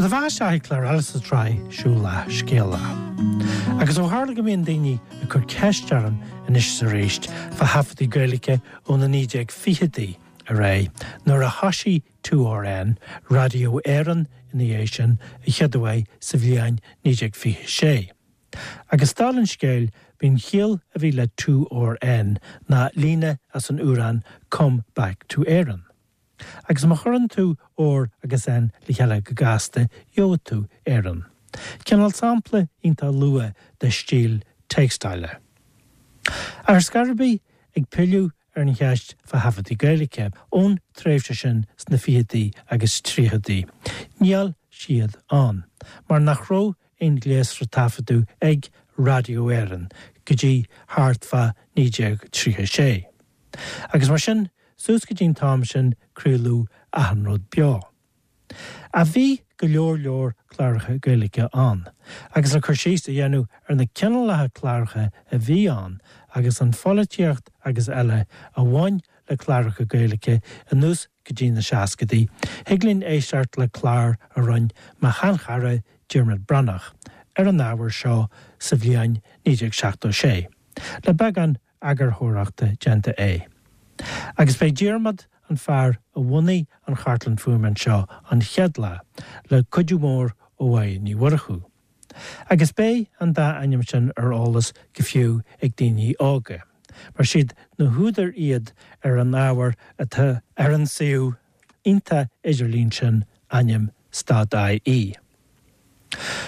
do bheatha isteach ag clár eile sa tsraith Siúil Leath Scéala. Agus ó tharla go mbíonn daoine ag cur ceist orm anois is arís fá thaifeadtaí Gaeilge ó na 1920idí ar aghaidh, nuair a thoisigh 2RN, Raidió Éireann ina dhiaidh sin, a chéaduair sa bhliain 1926. Agus dála an scéil, b'í an chiall a bhí le 2RN ná líne as an amhrán Come Back to Éireann. Agus má chuireann tú R agus N le chéile go gasta, gheobhaidh tú Éireann. Cineál sampla iontach luath de stíl téacsála. Ach ar scor ar bith, ag pilleadh ar an cheist fá thaifeadtaí Gaeilge ón tréimhse sin sna fichidí agus tríochaidí, níl siad ann, mar nach raibh aon ghléasra taifeadadh ag Raidió Éireann go dtí thart fá 1936. Agus mar sin, suas go dtí an t-am sin, craoladh achan rud beo. Ach bhí go leor leor cláracha Gaeilge ann, agus le cur síos a dhéanamh ar na cineálacha cláracha a bhí ann agus an pholaitíocht agus eile a bhain le cláracha Gaeilge anuas go dtí na seascadaí, thig linn éisteacht le clár a rinne mo sheanchara Diarmuid Breathnach ar an ábhar seo sa bhliain 1976, le beagán eagarthóireachta déanta aige. Agus b'é Diarmaid an fear a bhunaigh an chartlann fuaime anseo an chéad lá, le cuidiú mór ó Mháire Ní Mhurchú. Agus beidh an dá ainm sin ar eolas go fiú ag daoine óga, mar siad na húdair iad ar an ábhar atá ar an suíomh iontach idirlín sin ainm stad-IE.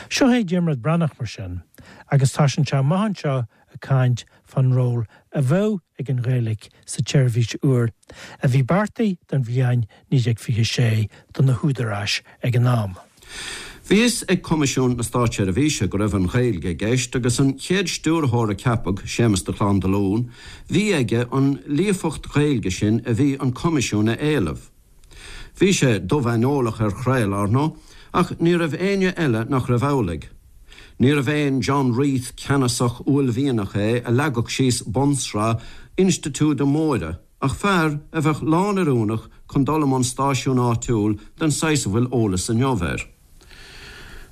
Seo é Diarmuid Breathnach mar sin, agus tosaíonn sé amach anseo ag caint fán ról a bheadh ag an Ghaeilge sa tseirbhís úr a bhí beartaithe don bhliain 1926 do na húdaráis ag an am. Bhí fhios ag Coimisiún na Státseirbhíse go raibh an Ghaeilge i gceist agus an chéad stiúrthóir a ceapadh, Séamus de Chlán Dolún, bhí aige an líofacht Ghaeilge sin a bhí an Coimisiún a éileamh. Bhí sé dubh-aineolach ar chraoladh, ar ndóigh, ach ní raibh éinne eile nach raibh amhlaidh. Níorbh aon John Reith ceannasach uaillmhianach é a leagfadh síos bunsraith institiúide móire ach fear a bheadh lán-oiriúnach chun dul i mbun stáisiún áitiúil den saghas a bhfuil eolas inniu air.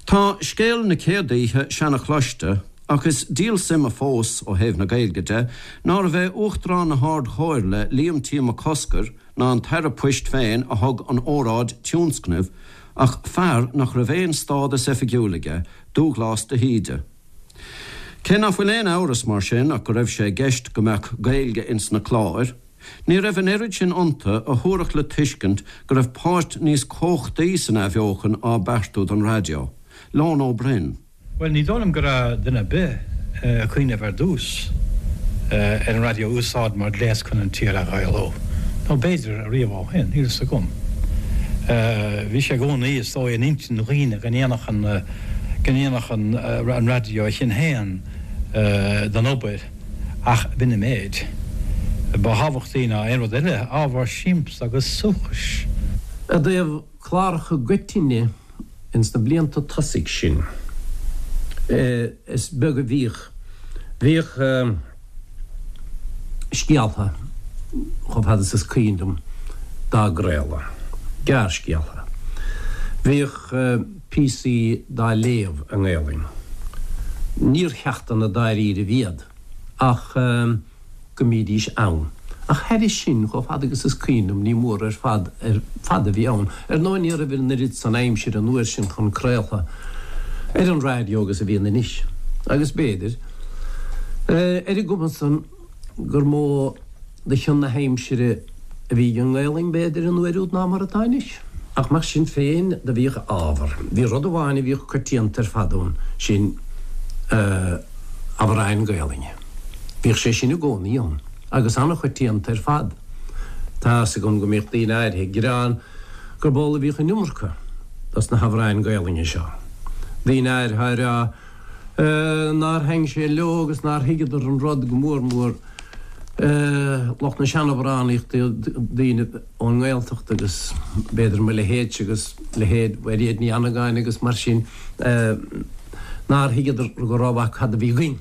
Tá scéal na céad oíche seana-chloiste, ach is díol suime fós, ó thaobh na Gaeilge de, nárbh é Uachtarán na hArd-Chomhairle, Liam T. Mac Cosgair, ná an tAire Poist féin a thug an óráid tionscnaimh, ach fear nach raibh aon stádas oifigiúil aige, Dúghlás de hÍde. Cé nach bhfuil aon amhras mar sin ach go raibh sé i gceist go mbeadh Gaeilge ins na cláir, ní raibh an oiread sin iontu a thabharfadh le tuiscint go raibh páirt níos cumhachtaí san athbheochan á beartú don raidió. Leon Ó Broin. Bhuel, ní dóigh liom go raibh duine ar bith ag cuimhneamh ar dtús ar an raidió a úsáid mar ghléas chun an tír a Ghaelú. Nó b'fhéidir riamh ó shin, níl fhios agam. Bhí sé i gcónaí, is dóigh, in intinn dhaoine go ndéanfadh an, go ndéanfadh an raidió a chion féin den obair, ach b'in an méid. Ba thábhachtaí ná aon rud eile ábhar siamsa agus suaithinis. I dtaobh cláracha i gcoitinne Ins na blianta tosaigh sin, is beag a bhíodh. Bhíodh scéaltha, chomh fada is is cuimhin liom, dá gcraoladh. Gearrscéaltha. Bhíodh píosaí dá léamh i nGaelainn. Níor cheachtanna dáiríribh iad, ach. go mbídís ann. Ach thairis sin, chomh fada agus is cuimhin liom, ní mór ar fad ar fad a bhí ann. Ar ndóigh, ní raibh an oiread san aimsire an uair sin chun craoltha ar an raidió agus a bhíonn anois. Agus b'fhéidir, ar an gcuma san, gur mó de chion na haimsire a bhí ag an nGaelainn, b'fhéidir, an uair úd ná mar atá anois. Ach mar sin féin, do bhíodh ábhar. Bhí rud amháin a bhíodh coitianta ar fad ann, sin amhráin Gaelainne. Bhíodh sé sin i gcónaí ann, agus an-choitianta ar fad. Tá fhios agam go mbíodh daoine áirithe ag gearán gurb amhlaidh a bhíodh an iomarca dos na hamhráin Gaelainne seo. Daoine áirithe á rá nár thaitn sé leo agus nár thuigeadar an rud, go mór mór lucht na seanamhránaíochta, daoine ón nGaeltacht agus b'fhéidir mo leithéidse agus leithéid Mhairéad Ní Annagáin agus mar sin, nár thuigeadar go rómhaith cad a bhí againn.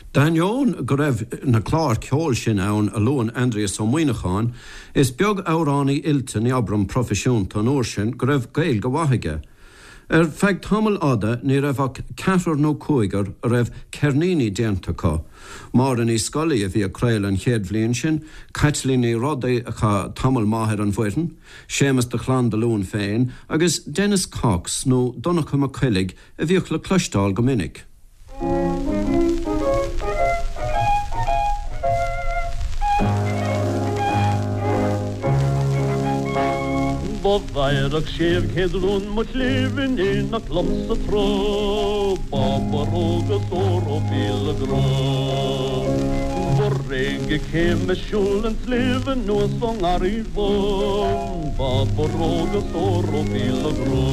D'ainneoin go raibh na cláir ceoil sin ann a luann Aindrias Ó Muíneacháin, is beag amhránaí oilte, ní abraim proifisiúnta, an uair sin go raibh Gaeilge mhaith aige. Ar feadh tamaill fhada ní raibh ach ceathrar nó cúigear a raibh ceirníní déanta acu, Máire Ní Scolaí a bhí ag craoladh an chéad bhliain sin, Caitlín Ní Rodaigh a chaith tamall maith ar an bhfoireann, Séamus de Chlanndalún féin agus Denis Cox nó Donncha Mac Coiligh a bhíodh le cloisteáil go minic. Do bhéarfadh 600 rún mo chléibh in éineacht liomsa tráth, Ba borróg is ór ó mhíle grá. Ba réidh céim ag siúl an tsléibhe anuas ón nGarraí Bhán, Ba borróg is ór ó mhíle grá.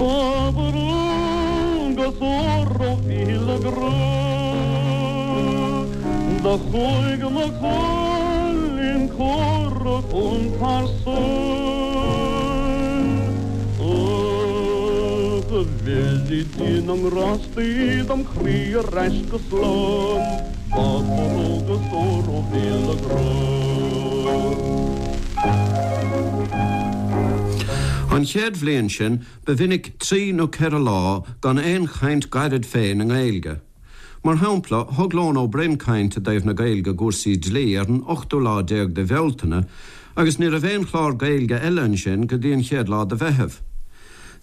Ba borróg is ór ó mhíle grá. Do chuaigh mo chailín córa chun pearsan. Ach a bheirí Dia na ngrástaí dom chroí ar ais go slán, Ba borróg is ór ó mhíle grá. An chéad bhliain sin, ba mhinic trí nó ceithre lá gan aon chaint ghairid féin i nGaeilge. Mar shampla, thug Leon Ó Broin caint i dtaobh na Gaeilge i gcúrsaí dlí ar an ochtú lá déag de Bhealtaine agus ní raibh aon chlár Gaeilge eile ansin go dtí an chéad lá de Mheitheamh.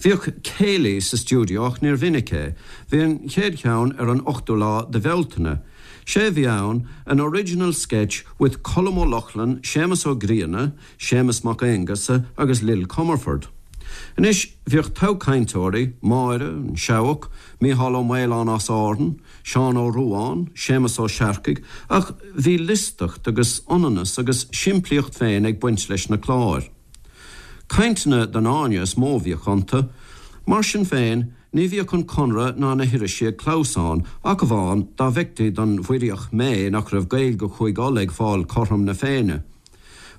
Bhíodh céilí sa stiúideo ach níor mhinic é. Bhí an chéad cheann ar an ochtú lá de Bhealtaine. Sé a bhí ann, an original sketch with Colm Ó Lochlainn, Séamus Ó Grianna, Séamus Mac Aonghusa agus Lil Comerford. Anois, bhíodh togha cainteoirí, Máire, an Seabhac, Mícheál Ó Maoláin as Árainn, Seán Ó Ruadháin, Séamus Ó Searcaigh, ach bhí liostacht agus ionannas agus simplíocht féin ag baint leis na cláir. Cainteanna don fháinne is mó a bhíodh iontu. Mar sin féin, ní bhíodh an Conradh ná na hirisí ag clamhsán, ach amháin dá bhfeictí don Mhuiríoch méith nach raibh Gaeilge Chúige Uladh ag fáil cothrom na Féinne.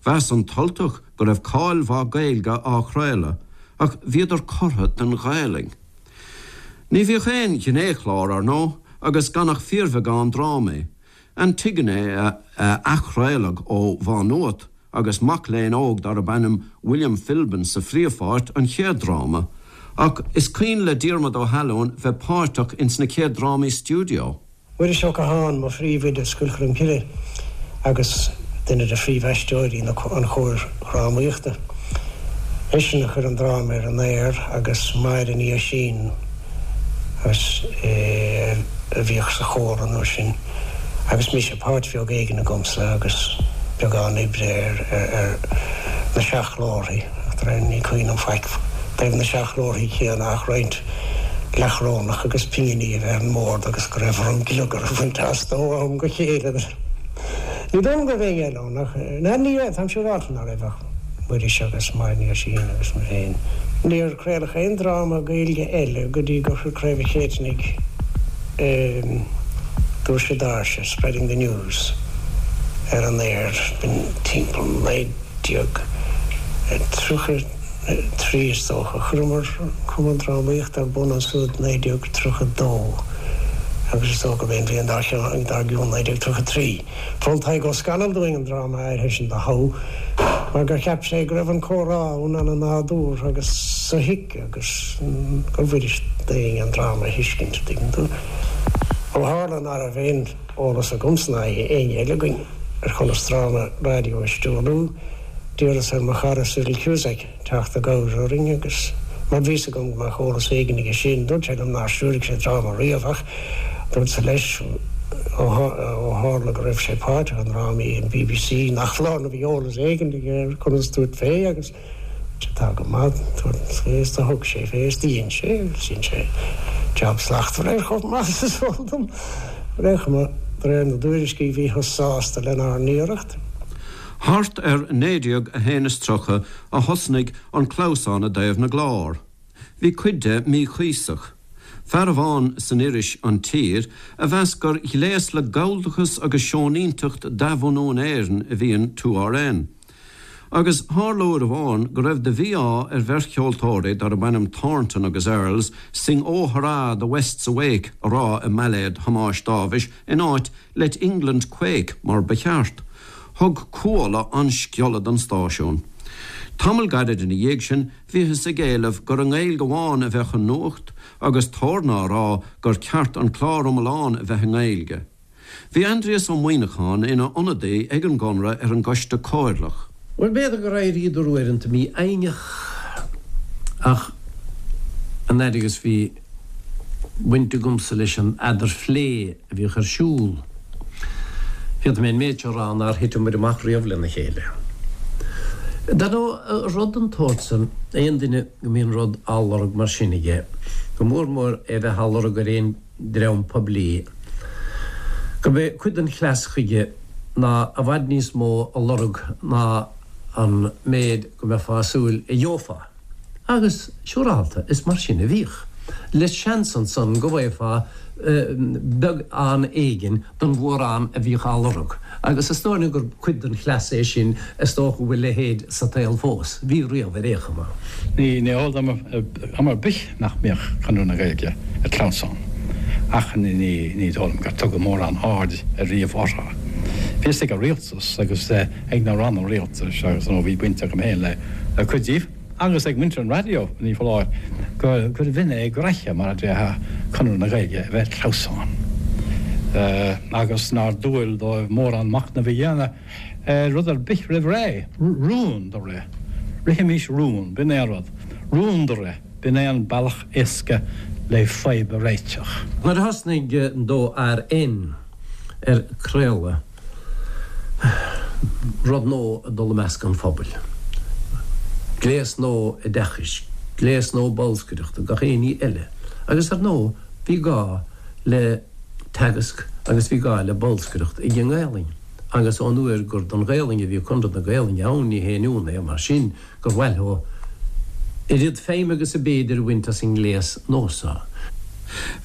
Mheas an tUltach go raibh cáil mhaith Gaeilge á chraoladh, ach bhíodar cortha den Ghaelainn. Ní bhíodh aon ghnéchlár, ar ndóigh, agus gan ach fíorbheagán drámaí. Antigone a athchraoladh ó Mhá Nuat agus mac léinn óg darb ainm William Philbin sa phríomhpháirt, an chéad dráma. Ach is cuimhin le Diarmuid Ó hAlmhain bheith páirteach ins na chéad drámaí stiúideo. Muiris Ó Catháin, mo phríomhoide Scoil Cholmcille agus duine de phríomhaisteoirí an chóir dhrámaíochta. Eisean a chuir an dráma ar an aer agus Máire Ní Oisín a bhíodh sa chór an uair sin agus mise, páirt bheag éigin agamsa agus beagán oibre ar na seachghlórthaí. Ní cuimhin liom faic i dtaobh na seachghlórthaí céanna ach roinnt leathchorónach agus pinginí a bheith ar an mbord agus go raibh orm gliogar a bhaint astu ó am go chéile. Ní dóigh liom go raibh éinne eile ann ach, ná ní raibh, táim siúráilte ná raibh ach Muiris agus Máire Ní Oisín agus mé féin. Níor craoladh aon dráma Gaeilge eile go dtí gur chuir Craobh an Chéitinnigh Doirse Doirse, Spreading the News, ar an aer, b'in timpeall 1933 is dócha. Chuireamar Cumann Drámaíochta ar bun ansúd 1932 agus is dócha gurb é an bhliain dár gcionn 1933. Mhol Tadhg Ó Scanaill dúinn an dráma áirithe sin do thoghadh mar gur cheap sé go raibh an comhrá ann ana-nádúrtha agus sothuigthe agus gur bhfuirist d'éinne an dráma a thuiscint, an dtuigeann tú. Ó tharla ná raibh aon eolas agamsa ná éinne eile againn ar chonas dráma raidió a stiúrú, d'iarras ar mo chara Cyril Cusack teacht i gcabhair orainn agus mar bhí 's agam go mbeadh eolas éigin aige sin, dúirt sé liom nár stiúraigh sé dráma riamh ach dúrtsa leis ó tharla go raibh sé páirteach i ndrámaí an bbc nach foláir nó bhí eolas éigin aige ar conas tabhairt fé agus Tá go maith, tabhairt fé is do thug sé fé is do dhein sé agus dhein sé jab slachtmhar air chomh maith is is eol dom. Ar aon chuma, de réir na dtuairiscí bhíothas sásta lenár n-iarracht. Thart ar 1931 a thosnaigh an clamhsán i dtaobh na gclár. Bhí cuid de míchuíosach. Fear amháin san iris An Tír a mheas gur ghléas le galldachas agus seoinínteacht d'athbhunú in Éirinn a bhí in 2RN. Agus tharla uair amháin go raibh de mhí-ádh ar bheirt cheoltóirí darb ainm Thornton agus Earls Sing Oh Hurrah the West's Awake a rá i mbailéad Thomáis Dáibhis in áit Let England Quake mar ba cheart. Thug Cuala an sciolla don stáisiún. Tamall gairid ina dhiaidh sin, bhíothas ag éileamh gur i nGaeilge amháin a bheadh an nuacht agus Torna á rá gur ceart an clár iomlán a bheith i nGaeilge. Bhí Aindrias Ó Muimhneacháin ina ionadaí ag an gConradh ar an gCoiste Comhairleach. Bhuel, b'fhéidir gur éiríodar uaireanta mífhoighneach ach an fhaid agus bhí baint agamsa leis an eadarphlé a bhíodh ar siúl, féadfaidh mé an méid seo a rá nár thiteamar amach riamh lena chéile. Dar ndóigh, rud den tsórt san, aon duine go mbíonn rud á lorg mar sin aige, go mór mór é bheith á lorg ar aon dream poiblí, gurb é cuid den chleas chuige ná i bhfad níos mó a lorg ná an méid go mbeifeá ag súil a gheofá. Agus, siúrálta, is mar sin a bhíodh. Le seans ansan go bhfaighfeá beagán éigin den mhórán a bhíodh á lorg. Agus is dóigh liom gur cuid den chleas é sin, is dócha go bhfuil a leithéid sa tsaol fós. Bhí riamh ar aon chuma. Ní eol dom am ar bith nach mbíodh Conradh na Gaeilge ag clamhsán, ach ní dóigh liom gur tugadh mórán aird ariamh orthu. Bhí fhios ag an rialtas agus ag na ranna rialtais agus nó bhí baint agam féin le cuid díobh agus ag muintir an raidió, ní foláir, gurbh in é graithe, mar a déarfá, Conradh na Gaeilge a bheith ag clamhsán agus nár dual dóibh mórán machnaimh a dhéanamh ar rud ar bith roimh ré. Rún do rith. Rithimís rún, b'in é an rud. Rún do rith, b'in é an bealach éasca le fadhb a réiteach. Nuair a thosnaigh an 2RN ar craoladh, rud nua ag dul i measc an phobail. Gléas nua oideachais, gléas nua bolscaireachta, gach aon ní eile. Agus ar ndóigh bhí gá le teagasc agus bhí gá le bolscaireacht ag an nGaelainn. Agus ón uair gur don Ghaelainn a bhí Conradh na Gaelainne ann ní haon ionadh é mar sin gur mhaith leo oiread feidhme agus a b'fhéidir a bhaint as an ngléas nua seo.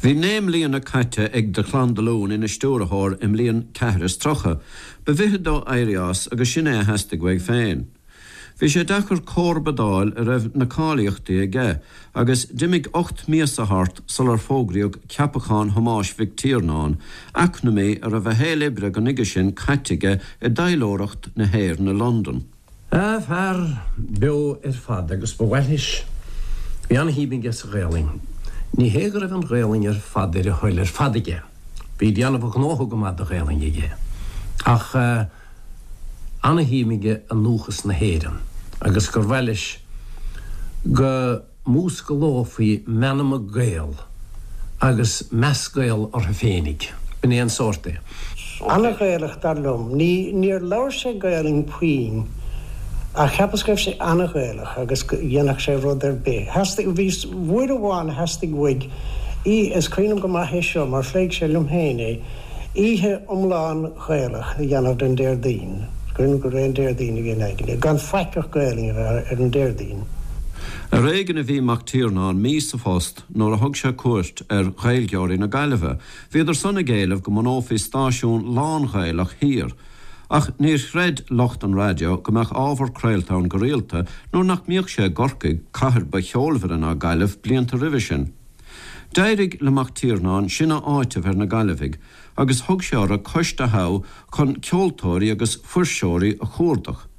Bhí 9 mbliana caite ag de Chlann Dolún ina stiúrthóir i mbliain 34. Ba mhithid dó éirí as agus sin é a theastaigh uaidh féin. Bhí sé deacair comharba d'fháil a raibh na cáilíochtaí aige agus d'imigh 8 míosa thart sular fógraíodh ceapachán Thomáis Mhic Tiarnáin, eacnamaí a raibh a shaol oibre go nuige sin caite aige i dtaidhleoireacht na hÉireann i Londain. Fear beo ar fad agus ba mhaith leis. Bhí ana-shuim aige sa Ghaelainn. Ní hé go raibh an Ghaelainn ar fad ar a thoil ar fad aige. Bhí déanamh a ghnótha go maith de Ghaelainn aige. Ach ana-shuim aige i ndúchas na hÉireann agus gur mhaith leis go múscalófaí meanma Gael agus meas Gael orthu féinig. B'in é an sórt é. Ana-Ghaelach, dar liom. Ní, níor labhair sé Gaelainn puinn, ach cheapas go raibh sé ana-Ghaelach agus go dhéanfadh sé rud ar bith. Theastaigh, bhí, uair amháin theastaigh uaidh, í, is cuimhin liom go maith é seo mar phléigh sé liom féin é, oíche iomlán Ghaelach a dhéanamh den Déardaoin, cuimhin liom gurb é an Déardaoin a bhí in aigne, gan faic ach Gaelainn a bheith ar an Déardaoin. Ar éigean a bhí Mac Tiarnáin mí sa phost nuair a thug sé cuairt ar Ghaeilgeoirí na Gaillimhe. Bhíodar san ag éileamh go mbunófaí stáisiún lán-Ghaelach thiar. Ach níor chreid lucht an raidió go mbeadh ábhar craolta ann go rialta nuair nach mbíodh sé i gCorcaigh, cathair ba cheolmhaire ná Gaillimh blianta roimhe sin. D'éirigh le Mac Tiarnáin sin a áiteamh ar na Gaillimhigh agus thug sé orthu coiste a thoghadh chun ceoltóirí agus fuirseoirí a chuardach.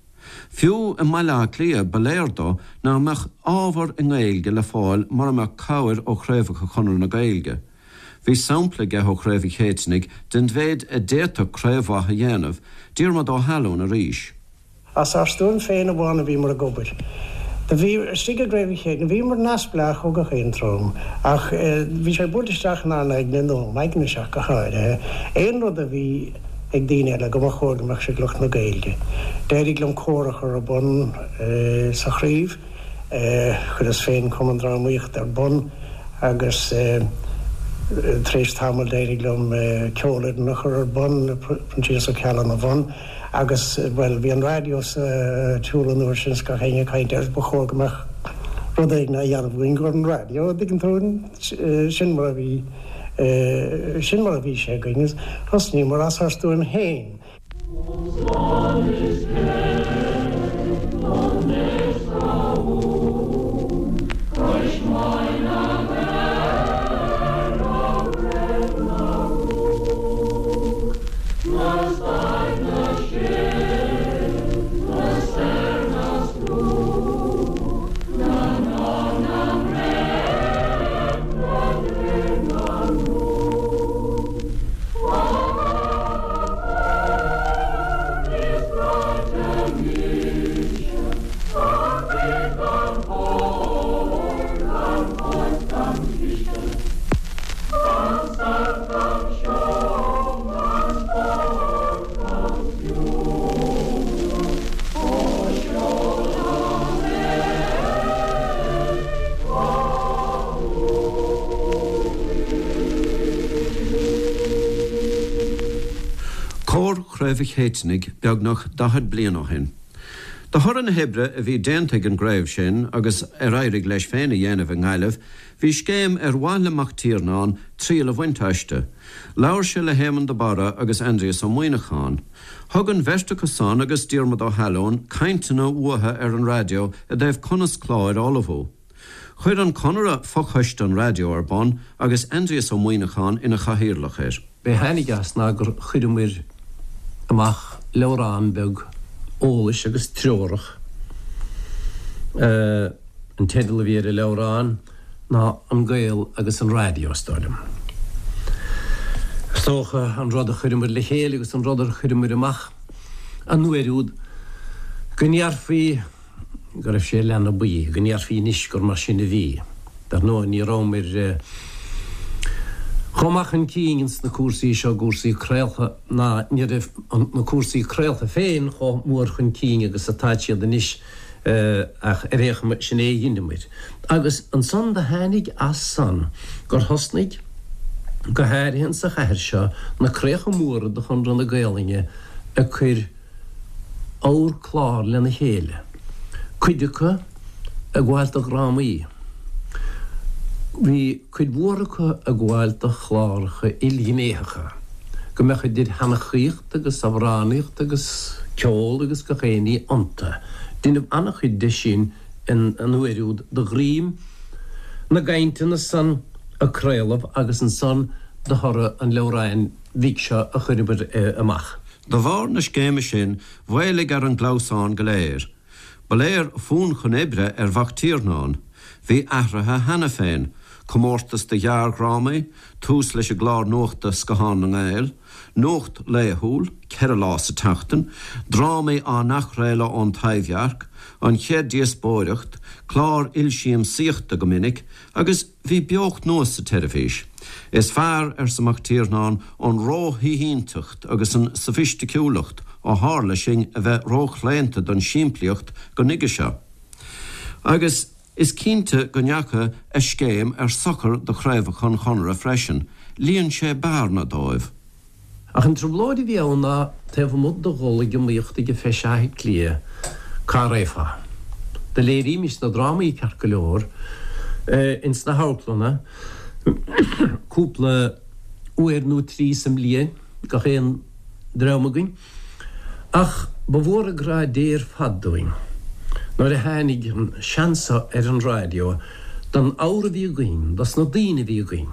Fiú i mBaile Átha Cliath ba léir dó nach mbeadh ábhar i nGaeilge le fáil mura mbeadh cabhair ó chraobhacha Chonradh na Gaeilge. Bhí sampla aige ó Chraobh an Chéitinnigh den mhéid a d'fhéadfadh craobh mhaith a dhéanamh, Diarmuid Ó hAlmhain arís. As ár stuaim féin amháin a bhíomar ag obair. Do bhí, istigh i gCraobh an Chéitinnigh, bhíomar neamhspleách ó gach aon dream, ach bhí sé buailte isteach inár n-aigne, nó m'aigne-se ach go háirithe, aon rud a bhí ag daoine eile, go mba chóir go mbeadh sé ag lucht na Gaeilge. D'éirigh liom cór a chur ar bun sa chraobh. Chuireas féin cumann drámaíochta ar bun agus tar éis tamaill d'éirigh liom ceolfhoireann a chur ar bun, Proinsias Ó Ceallaigh ina bhun. Agus, bhuel, bhí an raidió sa tsiúl an uair sin is gach éinne ag caint air, ba chóir go mbeadh rud éigin á dhéanamh againn don raidió, an dtuigeann tú, sin mar a bhí, sin mar a bhí sé againn agus thosnaíomar as ár stuaim féin. Chraobh Chéitinnigh beagnach 40 bliain ó shin. De thoradh na hoibre a bhí déanta ag an gcraobh sin agus ar éirigh leis féin a dhéanamh i nGaillimh, bhí scéim ar mhaith le Mac Tiarnáin triail a bhaint aisti. Labhair sé le hÉamonn de Barra agus Aindrias Ó Muíneacháin. Thug an bheirt acu san agus Diarmuid Ó hAlóin cainteanna uathu ar an raidió i dtaobh conas cláir a ullmhú. Chuir an Conradh fochoiste an raidió ar bun agus Aindrias Ó Muíneacháin ina chathaoirleach air. B'é tháinig as ná gur chuireamair amach leabhrán beag eolais agus treorach. An teideal a bhí ar an leabhrán ná An Gael agus an Raidió, is dóigh liom. Is dócha an rud a chuireamair le chéile agus an rud ar chuireamair amach an uair úd go ndéarfaí, go raibh sé i leath na buí, go ndéarfaí anois gur mar sin a bhí. Dar ndóigh, ní rabhamair chomh maith chun cinn ins na cúrsaí seo, cúrsaí craolta, ná ní raibh na cúrsaí craolta féin chomh mór chun cinn agus atáid siad anois, ach ar aon chuma, sin é a dheineamair. Agus ansan do tháinig as san gur thosnaigh, go háirithe insa chathair seo, na craobhacha móra de Chonradh na Gaolainne ag cur, ábhar clár lena chéile, cuid acu ag gabháil do dhrámaí. Bhí cuid mhór acu ag gabháil do chláracha ilghnéitheacha, go mbeadh idir sheanchaíocht agus amhránaíocht agus ceol agus gach aon ní iontu. Deineadh an-chuid de sin an uair úd de dhroim na gcainteanna san a craoladh agus ansan de thoradh an leabhráin bhig seo a chuireamar amach. De bharr na scéime sin, mhaolaigh ar an gclamhsán go léir. Ba léir fonn chun oibre ar Mhac Tiarnáin. Bhí athruithe cheana féin, comórtas do ghearrdhrámaí, tús leis an gclár nuachta Scathán na nGael, nuacht laethúil, 4 lá sa tseachtain, drámaí á n-athchraoladh ón Taibhdhearc, an chéad díospóireacht, clár ilsiamsaíochta go minic, agus. Bhí beocht nua sa tseirbhís. Is fearr, arsa Mac Tiarnáin, an róshaoithínteacht agus an sofaisticiúlacht ó tharla sinn a bheith róchlaonta don simplíocht go nuige seo. Agus is cinnte go ndeachaigh a scéim ar sochar do chraobhacha an Chonartha freisin, líon sé bearna dóibh. Ach an trioblóid a bhí ann ná taobh amuigh de dhul ag iomaíocht ag an Feis Átha Cliath, cá raghfá? Do léirímis na drámaí ceart go leor ins na hamharclanna cúpla uair nó trí sa mbliain, gach aon dream againn. Ach ba mhór an grá Dé ar fad dúinn nuair a tháinig an seans seo ar an raidió don ábhar a bhí againn, dos na daoine a bhí againn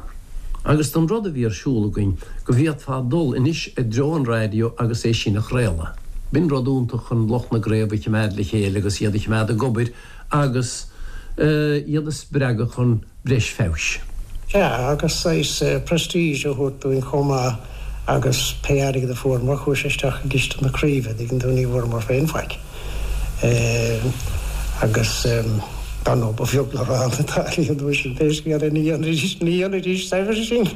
agus don rud a bhí ar siúl againn go bhféadfá dul anois i dtreo an raidió agus é sin a chraoladh. B'in rud iontach chun lucht na gcraobh a chimeád le chéile agus iad a chimeád ag obair agus iad a spreagadh chun breis feabhais. Sea, agus saghas prestige a thabhairt dúinn chomh maith agus pé airgead a fuaireamar chuaigh sé isteach i gciste na craoibhe, dtuigeann tú, ní bhfuaireamar féin faic. Agus dar ndóigh ba bheag le rá na táillí an uair sin, pé scéal é, ní dhéanfaidís, ní dhéanfaidís saibhreas sinn.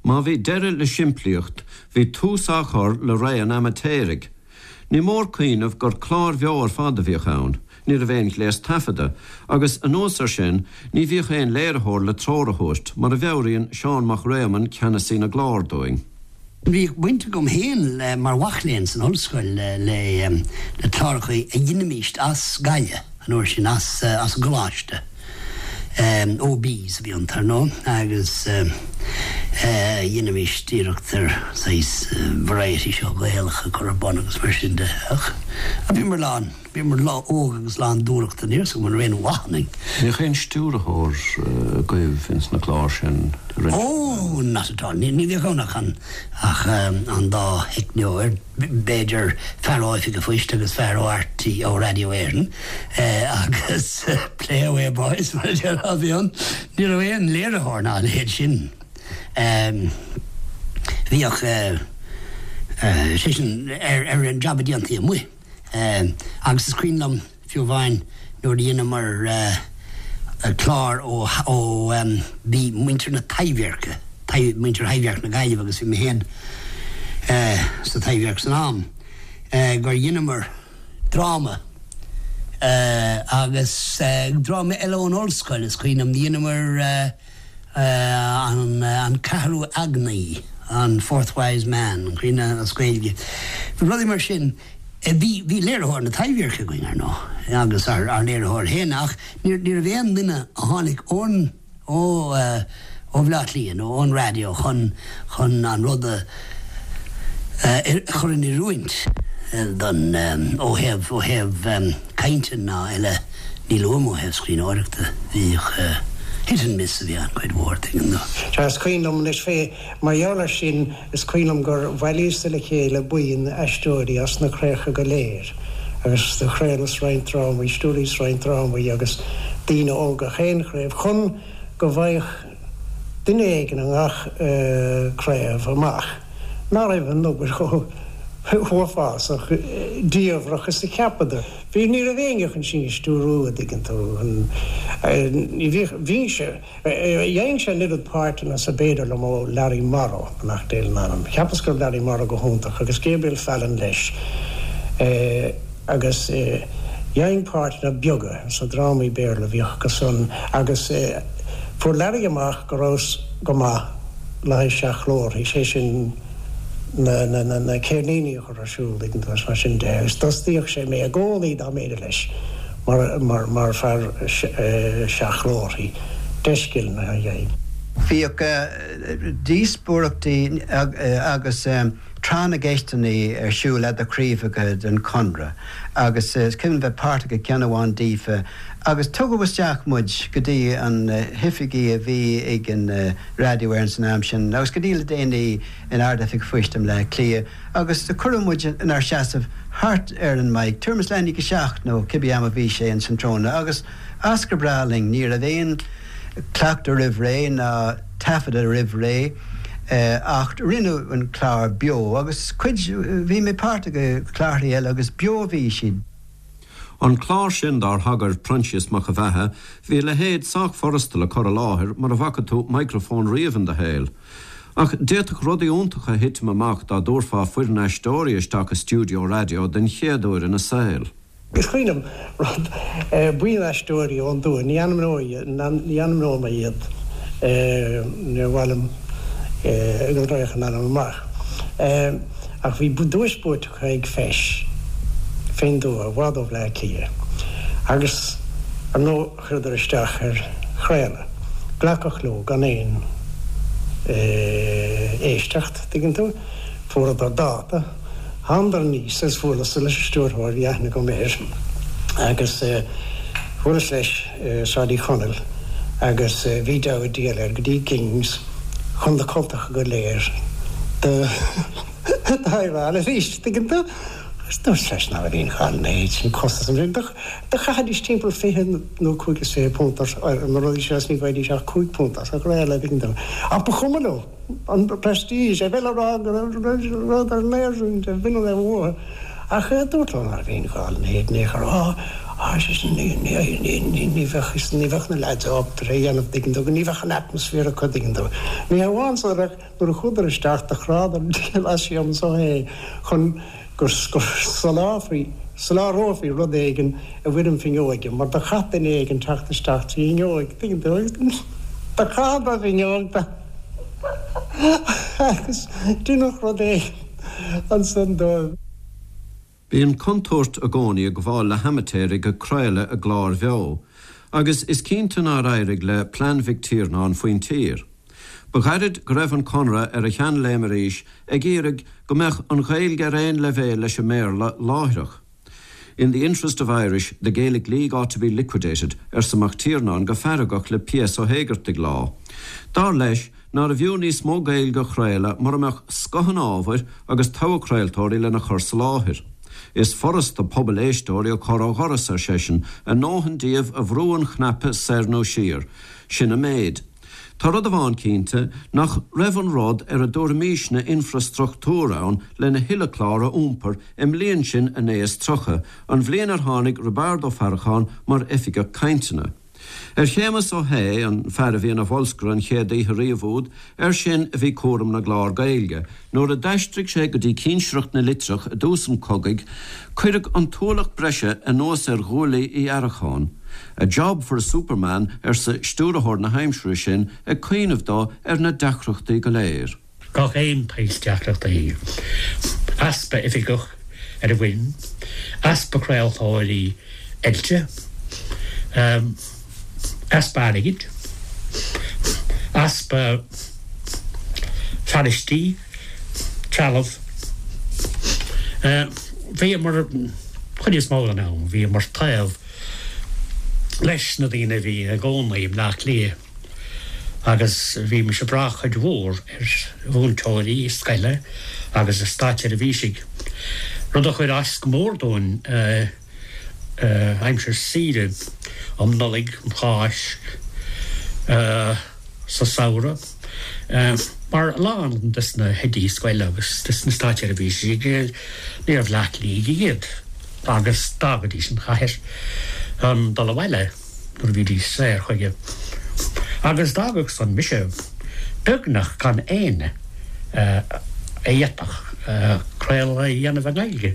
Má bhí deireadh le simplíocht, bhí tús á chur le ré an amaitéaraigh. Ní mór cuimhneamh gur cláir bheo ar fad a bhíodh ann, ní raibh aon ghléas taifeadta, agus anuas air sin, ní bhíodh aon léiritheoir le treoir a thabhairt, mar a mheabhraíonn Seán Mac Réamoinn, ceannasaí na gclár, dúinn. Bhíodh baint agam féin le, mar mhac léinn san ollscoil, le le cláracha a dheinimíst as Gaillimh an uair sin, as as an gcoláiste. OBs a bhí iontu, ar ndóigh, agus dheinimíst iarracht ar saghas variety show Gaelach a chur ar bun agus mar sin de. Ach bhíomar lán, bhíomar óg agus lán dúthrachta, níl 'fhios agam an raibh aon mhaith ionainn. Bhíodh aon stiúrthóir agaibh ins na cláir sin a rinne? Oh, not at all. Ní bhíodh ann ach an, ach an dá theicneoir. b'fhéidir fear ó Oifig an Phoist agus fear ó RTÉ, ó Radio Éireann, agus play away boys mar a déarfá a bhí ann. Ní raibh aon léiritheoir ná a leithéid sin. Bhíodh, sé sin, ar an jab a déantaí amuigh. Agus is cuimhin liom, Fiú amháin nuair a dheineamar clár ó bhí muintir na Taibhdheirce, muintir Thaibhdhearc na Gaillimhe agus bhí mé féin sa Taibhdhearc san am, gur dheineamar dráma agus dráma eile ón ollscoil, is cuimhin liom, dheineamar An Ceathrú Eagnaí. An Fourth Wise Man, an cuimhin as Gaeilge. Bhí rudaí mar sin. Bhí, bhí léiritheoir na Taibhdheirce againn, ar ndóigh, agus ár, ár léiritheoir féin, ach ní, ní raibh aon duine a tháinig ón, ó, ó Bhaile Átha Cliath nó ón raidió chun, chun an rud a, a chur in oiriúint don, ó thaobh, ó thaobh cainte ná eile. Ní luaim ó thaobh scríbhneoireachta, bhíodh hit and miss a bhí ann cuid mhór, tuigeann tú. Sea, is cuimhin liom anois fé, mar gheall air sin, is cuimhin liom gur bhailíos-sa le chéile buíon aisteoirí as na craobhacha go léir agus do chraolas roinnt drámaí, stiúraíos roinnt drámaí agus daoine ó gach aon chraobh chun go bhfaigheadh duine éigin i ngach craobh amach ná raibh an obair chomh huafásach diamhrach is a cheapadar. Bhí, ní raibh éinne chun sinn a stiúrú, a dtuigeann tú. Ní bhíodh, bhínnse, dheineadh-se an oiread páirteanna is ab fhéidir liom ó Larry Morrow, beannacht Dé lena anam. Cheapas go raibh Larry Morrow go hiontach agus Gabriel Fallon leis. Agus dhein páirteanna beaga sna drámaí Béarla a bhíodh acu san agus fuair Larry amach go rabhas go maith le haghaidh seachghlórthaí, sé sin na ceirníní a chur ar siúl, tuigeann tú, agus mar sin de, agus d'fhostaíodh sé mé i gcónaí dá mb'fhéidir leis mar, mar, mar fear seachghlórthaí, deiscileanna a dhein. Bhíodh díospóireachtaí agus tráth na gceisteanna ar siúl eadar chraobhacha den Chonradh agus is cuimhin bheith páirteach i gceann amháin díofa agus tugadh isteach muid go dtí an hoifigí a bhí ag an Raidió Éireann san am sin agus go dtí le déanaí in Ard-Oifig an Phoist i mBleá Cliath agus do cuireadh muid inár seasamh thart ar an mic, tuairim is leath i ndiaidh a seacht nó cibé am a bhí sé ins an tráthnóna agus as go breá linn, ní raibh aon cleachtadh roimh ré ná taifeadadh roimh ré ach rinneadh an clár beo agus cuid, bhí mé páirteach i gclárthaí eile agus beo a bhí siad. An clár sin dár thagair Proinsias Mac a Bheatha, bhí a leithéid sách furasta le cur i láthair mura bhfaca tú micreafón riamh in do shaol. Ach d'fhéadfadh rudaí iontacha thitim amach dá dtabharfá foireann aisteoirí isteach i stiúideo raidió den chéad uair ina saol. Is cuimhin liom rud, buíon aisteoirí ón dtuath, ní ainmneoidh, ní ainmneoidh mé iad, níor mhaith liom go raghadh a n-ainm amach, ach bhí duais buaite acu ag feis fén dtuath, i bhfad ó Bhleá Cliath, agus ar ndóigh chuireadar isteach ar chraoladh. Glacadh leo gan aon éisteacht, tuigeann tú. Fuaireadar dáta. Thánadar aníos agus bhuaileas leis an stiúrthóir, bhí aithne agam air, agus bhuaileas leis i Sráid Uí Chonaill agus bhí deabhadh diabhail air go dtí Gings chun na cultacha go léir do adhráil arís, tuigeann tú. Agus dúirt leis ná raibh aon ghá lena leithéid sin, costas an Do chaithfidís timpeall 20 nó £25 ar na rudaí seo is ní bhfaighidís ach £5 as a chraoladh, tuigeann tú. Ach ba chuma leo an prestige, a bheith le rá go raibh rud ar léirsiú de bhinn a raibh uathu. Ach dúirt leo ná raibh aon ghá lena leithéid in aon chor. Á, á, ar seisean, ní, ní, ní, ní bheadh, ní bheadh na leaids ábalta é a dhéanamh, tuigeann tú, ní bheadh an atmosphere acu, tuigeann tú. Ní hamháin san ach nuair a chuadar isteach do chrádar an diabhal as anso é chun go soláthrófaí rud éigin i bhfoirm fuinneoige, mar do chaith duine éigin teacht isteach trí fhuinneoig, tuigeann tú, agus do chaitheadar fuinneog de agus deineadh rud éigin ansan dóibh. Bíonn contúirt i gcónaí ag gabháil le hamaitéaraigh ag craoladh i gcláir bheo, agus is cinnte nár éirigh le plean Mhic Tiarnáin faoin tír. Ba ghairid go raibh an Conradh ar a sheanléim arís ag iarraidh go mbeadh an Ghaeilge ar aon leibhéal leis an mBéarla láithreach. In the interest of Irish, the Gaelic League ought to be liquidated, arsa Mac Tiarnáin go feargach le P.S. Ó hÉigeartaigh lá. Dar leis, nárbh fhiú níos mó Gaeilge a chraoladh mura mbeadh scoth an ábhair agus togha craoltóirí lena chur sa láthair. Is furasta pobal éisteoirí a chur ó dhoras, ar seisean, a ndóthain díobh a bhrú an chnaipe soir nó siar. Sin an méid. Tá rud amháin cinnte, nach raibh an rud ar a dtabharfaimísne infreastruchtúr ann lena thuilleadh clár a iompar i mbliain sin a naoi is 30, an bhliain ar tháinig Roibeárd Ó Faracháin mar Oifigeach Cainteanna. Ar Shéamus Ó hAodha, an fear a bhí ina bholscaire an chéad oíche riamh úd, air sin a bhí cúram na gclár Gaeilge. Nuair a d'aistrigh sé go dtí cinsireacht na litreach i dtús an chogaidh, cuireadh an t-ualach breise anuas ar ghuaillí Uí Fharacháin. A job for a superman, arsa stiúrthóir na haimsire sin, ag cuimhneamh dó ar na deacrachtaí go léir. Gach aon tsaghas deacrachtaí. Easpa oifigeach ar an bhfoireann, easpa craoltóirí oilte, easpa airgid, easpa fearaistí, trealamh. Bhíomar, chuid is mó den am, bhíomar taobh leis na daoine a bhí ina gcónaí i mBleá Cliath agus bhímis ag brath cuid mhór ar mhúinteoirí scoile agus ar státseirbhísigh, rud a chuir as go mór dúinn aimsir saoire um Nollaig, um Cháisc, sa samhradh, mar a lán des na hoidí scoile agus des na státseirbhísigh, níorbh Bhleá Cliathaigh iad agus d'fhágaidís an chathair chun dul abhaile nuair a bhídís saor chuige. Agus d'fhágadh san mise beagnach gan éinne a fhéadfadh craoladh a dhéanamh i nGaeilge.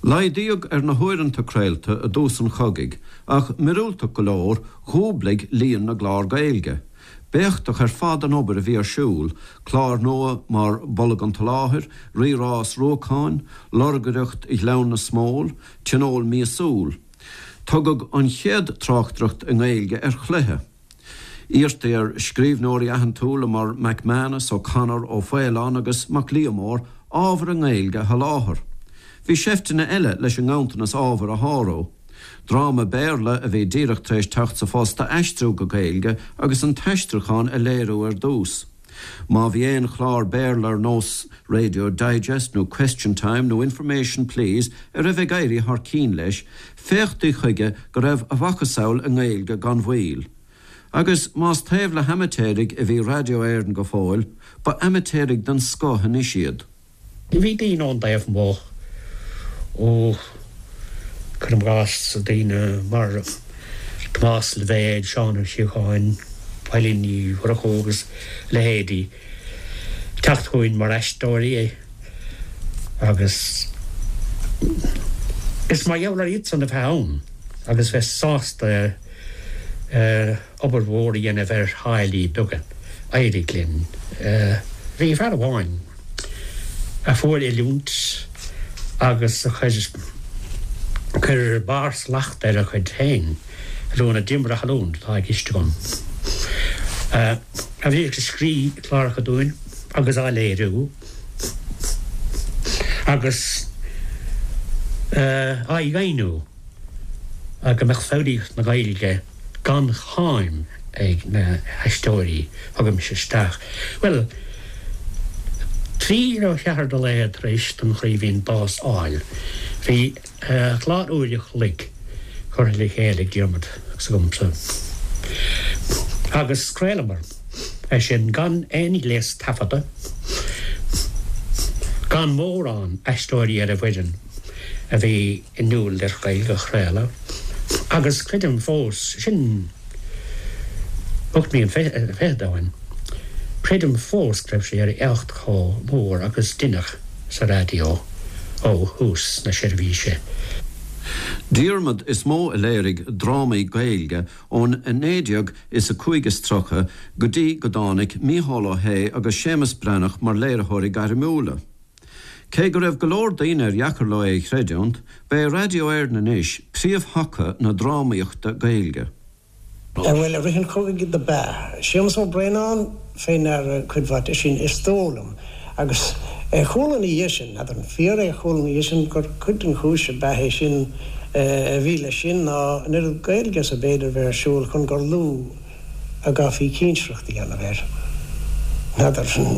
Laghdaíodh ar na huaireanta craolta i dtús an chogaidh ach, míorúilteach go leor, dhúblaigh líon na gclár Gaeilge. B'éachtach ar fad an obair a bhí ar siúl, cláir nua mar Bolg an tSoláthair, Rí-Rás Ruacáin, Lorgaireacht Ghleann na Smól, Tionól Míosúil. Tugadh an chéad tráchtaireacht i nGaeilge ar chluiche. Iarrtaí ar scríbhneoirí aitheantúla mar McManus, O'Connor, Ó Faoláin agus Mac Liammóir ábhar i nGaeilge a sholáthar. Bhí seifteanna eile leis an nganntanas ábhair a shárú. Dráma Béarla a bhí díreach tar éis teacht sa phost a aistriú go Gaeilge agus an t-aistriúchán a léiriú ar dtús. Má bhí aon chlár Béarla ar nós Radio Digest nó Question Time nó Information Please a raibh ag éirí thar cinn leis, féachtaí chuige go raibh a mhacasamhail i nGaeilge gan mhoill. Agus más taobh le hamaitéaraigh a bhí Radio Éireann go fóill, ba amaitéaraigh den scoth anois iad. Bhí daoine ón dtaobh amuigh, ó, cuirim i gcás, daoine mar Tomás Loibhéad, Seán Ó Síocháin, Eilín Ní Mhurchú agus a leithéidí, ag teacht chugainn mar aisteoirí agus is mar gheall ar iadsan a bheith ann agus bheith sásta obair mhór a dhéanamh ar tháillí beaga. D'éirigh linn. Bhí fear amháin a fuair oiliúint agus a chuir chuir barr slacht ar a chuid féin oiliúna, Diarmuid Ó hAllúin atá i gceist agam, a bhíodh ag scríobh cláracha dúinn agus á léiriú agus á dheimhniú. go mbeadh foghraíocht na Gaeilge gan cháim ag na haisteoirí a thugaimis isteach. Bhuel, trí nó ceathair de laethe tar éis don Chraoibhín bás fháil, bhí clár uair a chloig curtha le chéile ag Diarmuid agus agamsa agus chraolamar é sin gan aon ghléas taifeadta, gan mórán aisteoirí ar an bhfoireann a bhí inniúil ar Ghaeilge a chraoladh agus creidim fós, sin 28 mbliain ó shin, creidim fós go raibh sé ar éacht chomh mór agus deineadh sa raidió ó thús na seirbhíse. Diarmaid is mó a léirigh drámaí Gaeilge ón 19 is a 35 is go dtí go dtáinig Mícheál Ó hAodha agus Séamus Breathnach mar léiritheoirí gairmiúla. Cé go raibh go leor daoine ar dheacair leo é a chreidiúint, ba é Raidió Éireann anois príomhthaca na drámaíochta Gaeilge. Bhuel, i rith an chogaidh do b'ea Séamus Ó Braonáin fé ndeara cuid mhaith de sin, is dóigh liom. Agus chuala ina dhiaidh sin, n'fheadar an fíor é, chuala ina dhiaidh sin gur cuid den chúis ab ea é sin a bhí leis sin ná an oiread Gaeilge is ab fhéidir bheith ar siúl chun gur lú a gcaithfí cinsireacht a dhéanamh air. N'fheadar an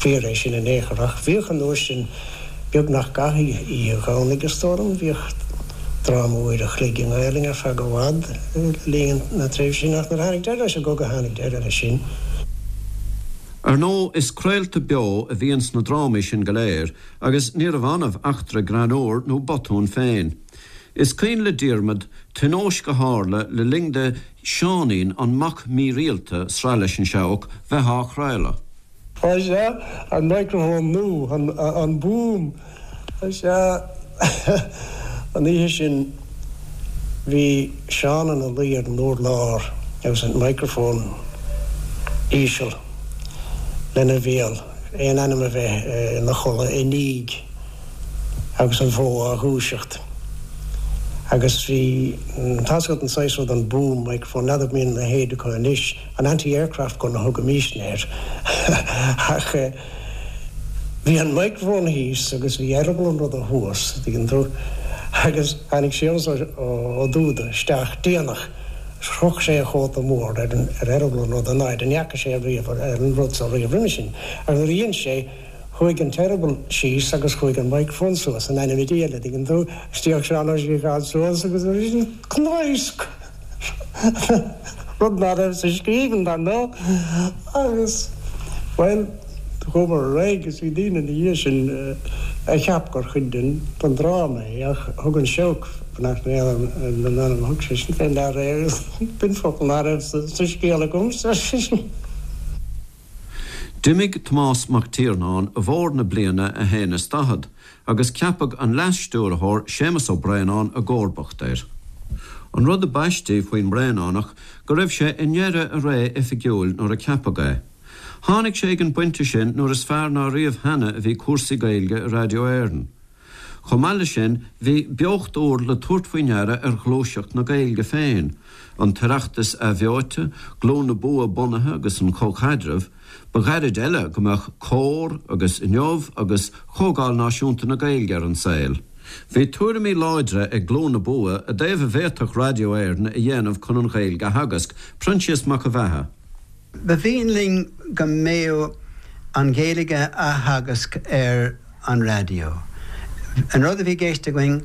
fíor é sin in aon chor, ach bhíodh an uair sin beagnach gach oíche Dhomhnaigh, is dóigh liom, bhíodh dráma uair a chloig i nGaelainn ar feadh i bhfad le linn na tréimhse sin, ach nuair a tháinig deireadh leis an gcogadh tháinig deireadh leis sin. Ar ndóigh, is craolta beo a bhí ins na drámaí sin go léir, agus níorbh annamh eachtra greannmhar nó botún féin. Is cuimhin le Diarmaid tionóisc a tharla le linn do Seáinín an Mac Mírialta, sraith leis an Seabhac, bheith á chraoladh. Á sea, an microphone nua, an boom. Á sea, an oíche sin bhí Seán ina luí ar an urlár agus an microphone íseal lena bhéal. aon anam a bheith ina chodladh i ndiaidh agus an bhó á dhúiseacht. Agus bhí, tá's agat an saghas rud an boom microphone, n'fheadar an mbíonn a leithéid acu anois, an anti-aircraft gun a thugaimisne air ach bhí an microphone thíos agus bhí eireaball an ruda thuas, an dtuigeann tú, agus tháinig Séamus Ó Dúda isteach déanach. Chroch sé a chóta mór ar eireaball an ruda in áit a ndeaca sé riamh ar an rud so riamh roimhe sin. Agus nuair a dhein sé, chuaigh an t-eireaball síos agus chuaigh an microphone suas, in ainm Dé, an dtuigeann tú. D'fhéach Seán Ó Síocháin suas agus cnaosc! Rud ná raibh sa scríbhinn, dar ndóigh. Agus, bhuel, chuamar ar aghaidh agus bhí daoine ina dhiaidh sin a cheap gur chuid den dráma é ach thug an Seabhac, beannacht Dé lena anam, thug seisean fé ndeara é agus b'in focal ná raibh sa scéal agamsa, ar seisean. D'imigh Tomás Mac Tiarnáin i bhfómhar na bliana a haon is daichead agus ceapadh an Leas-Stiúrthóir Séamus Ó Braonáin i gcomharbacht air. An rud ab aistí faoin mBraonánach go raibh sé i ndeireadh a ré oifigiúil nuair a ceapadh é. Tháinig sé ag an bpointe sin nuair is fearr ná riamh cheana a bhí cúrsaí Gaeilge i Radio Éireann. Chomh maith leis sin, bhí beocht úr le tabhairt faoi ndeara ar ghluaiseacht na Gaeilge féin, an tOireachtas athbheoite, Glún na Bua bunaithe agus an Comhchaidreamh, ba ghairid eile go mbeadh Comhar agus Inniu agus Comhdháil Náisiúnta na Gaeilge ar an saol. Bhí tuairimí láidre ag Glún na Bua i dtaobh a bhféadfadh Radio Éireann a dhéanamh chun an Ghaeilge a theagasc, Proinsias Mac an Bheatha. Ba mhian linn go mbeadh an Ghaeilge á theagasc ar an raidió. An rud a bhí i gceist againn,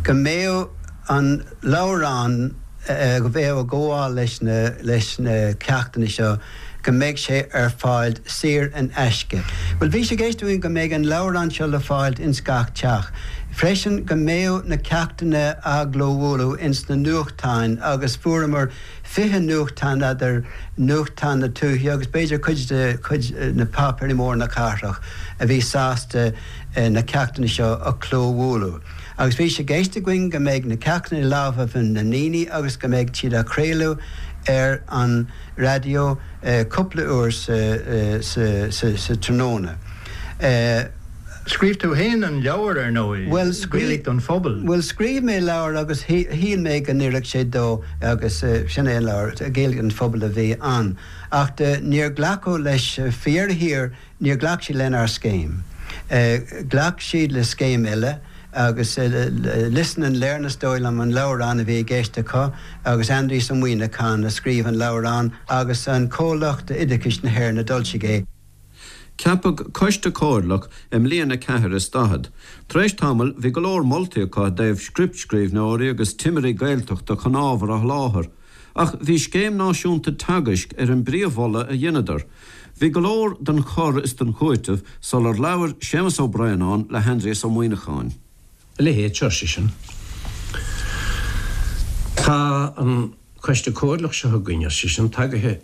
go mbeadh an leabhrán a bheadh ag gabháil leis na leis na ceachtanna seo, go mbeadh sé ar fáil saor in aisce. Bhuel, bhí sé i gceist againn go mbeadh an leabhrán seo le fáilt ins gach teach. Freisin, go mbeadh na ceachtanna á gclóbhualadh ins na nuachtáin agus fuaireamar 20 nuachtán eadar nuachtáin na tuaithe agus b'fhéidir cuid de chuid na páipéirí móra na cathrach a bhí sásta na ceachtanna seo a chlóbhualadh. Agus bhí sé i gceist againn go mbeidh na ceachtanna i lámhaibh na ndaoine agus go mbeidh siad á chraoladh ar an raidió cúpla uair sa tráthnóna. Scríobh tú fhéin an leabhar, ar ndóigh, Gaeilge don Phobal. Bhuel, scríobh mé leabhar agus shíl mé go n-oirfeadh sé dó agus sin é an leabhar, Gaeilge don Phobal a bhí ann. Ach níor glacadh leis, faoi dheireadh thiar, níor ghlac siad lenár scéim. Ghlac siad le scéim eile agus Listen and Learn is dóigh liom an leabhrán a bhí i gceist acu agus Aindrias Ó Muimhneacháin a scríobh an leabhrán agus an Comhlacht Oideachais na hÉireann a d'fhoilsigh é. Ceapadh Coiste Comhairleach i mbliain a ceathair is daichead. Tar éis tamaill bhí go leor moltaí acu i dtaobh scriptscríbhneoirí agus timirí Gaeltachta chun ábhar a sholáthar. Ach bhí scéim náisiúnta teagaisc ar an bpríomh-mholadh a dheineadar. Bhí go leor den chur is den chúiteamh sular labhair Séamus Ó Braonáin le hAindrias Ó Muimhneacháin. A leithéid seo, ar seisean. Tá an Coiste Comhairleach seo againn, ar seisean, tagaithe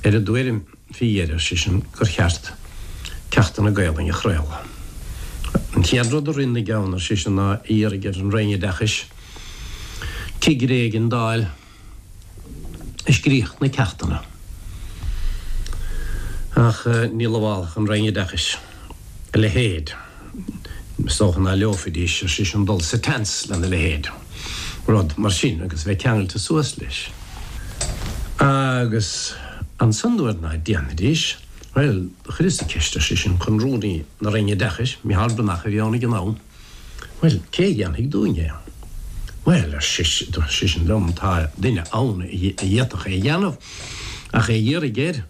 ar an dtuairim fé dheireadh, ar seisean, gur cheart ceachtanna Gaelainne a chraoladh. An chéad rud a rith ina gceann, ar seisean, ná a iarraidh ar an Roinn Oideachais cigire éigin d'fháil a scríobhadh na ceachtanna. Ach ní lamhálfadh an Roinn Oideachais a leithéid. Is dócha ná leomhfaidís, ar seisean, dul sa tseans lena leithéid, rud mar sin, agus a bheith ceangailte suas leis. Agus ansan nuair ná déanfaidís, bhuel, do chuireas-sa ceist, ar seisean, chun Rúnaí na Roinne Oideachais, Micheál Breathnach a bhí ann ag an am, Bhuel, cé a dhéanfaidh dúinn é? Bhuel, ar seisean liom, tá duine ann a d'fhéadfadh é a dhéanamh, ach é a iarraidh air.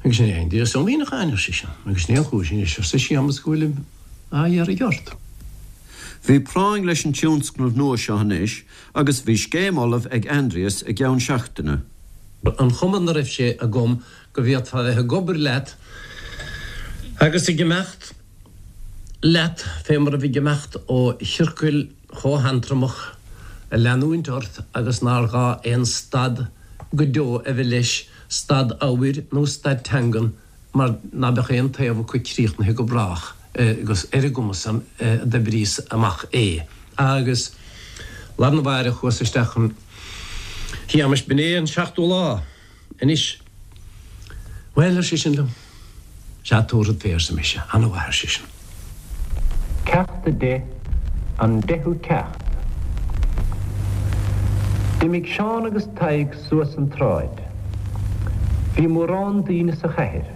Agus sin é Aindrias Ó Muimhneacháin, ar seisean, agus sin é an chúis anois, arsa Séamus, go bhfuilim á iarraidh ort. Bhí práinn leis an tionscnamh nua seo anois agus bhí scéim ullamh ag Aindrias i gceann seachtaine. An chuma 'na raibh sé agam go bhféadfá bheith ag obair leat agus ag imeacht leat fé mar a bheadh ag imeacht ó chiorcal chomh hantromach a leanúint ort agus nár ghá aon stad go deo a bheith leis, stad ábhair nó stad teangan, mar ná beadh aon taobh acu críochnaithe go brách agus ar an gcuma san a d'oibríos amach é. Agus lá arna mháireach chuas isteach chun Shéamais, b'in é an seachtú lá. Anois. Bhuel, ar seisean liom. Sea, tabharfad fé, arsa mise. Ana-mhaith, ar seisean. Ceacht 10, An Deichiú Ceacht. D'imigh Seán agus Tadhg suas an tsráid. Bhí mórán daoine sa chathair.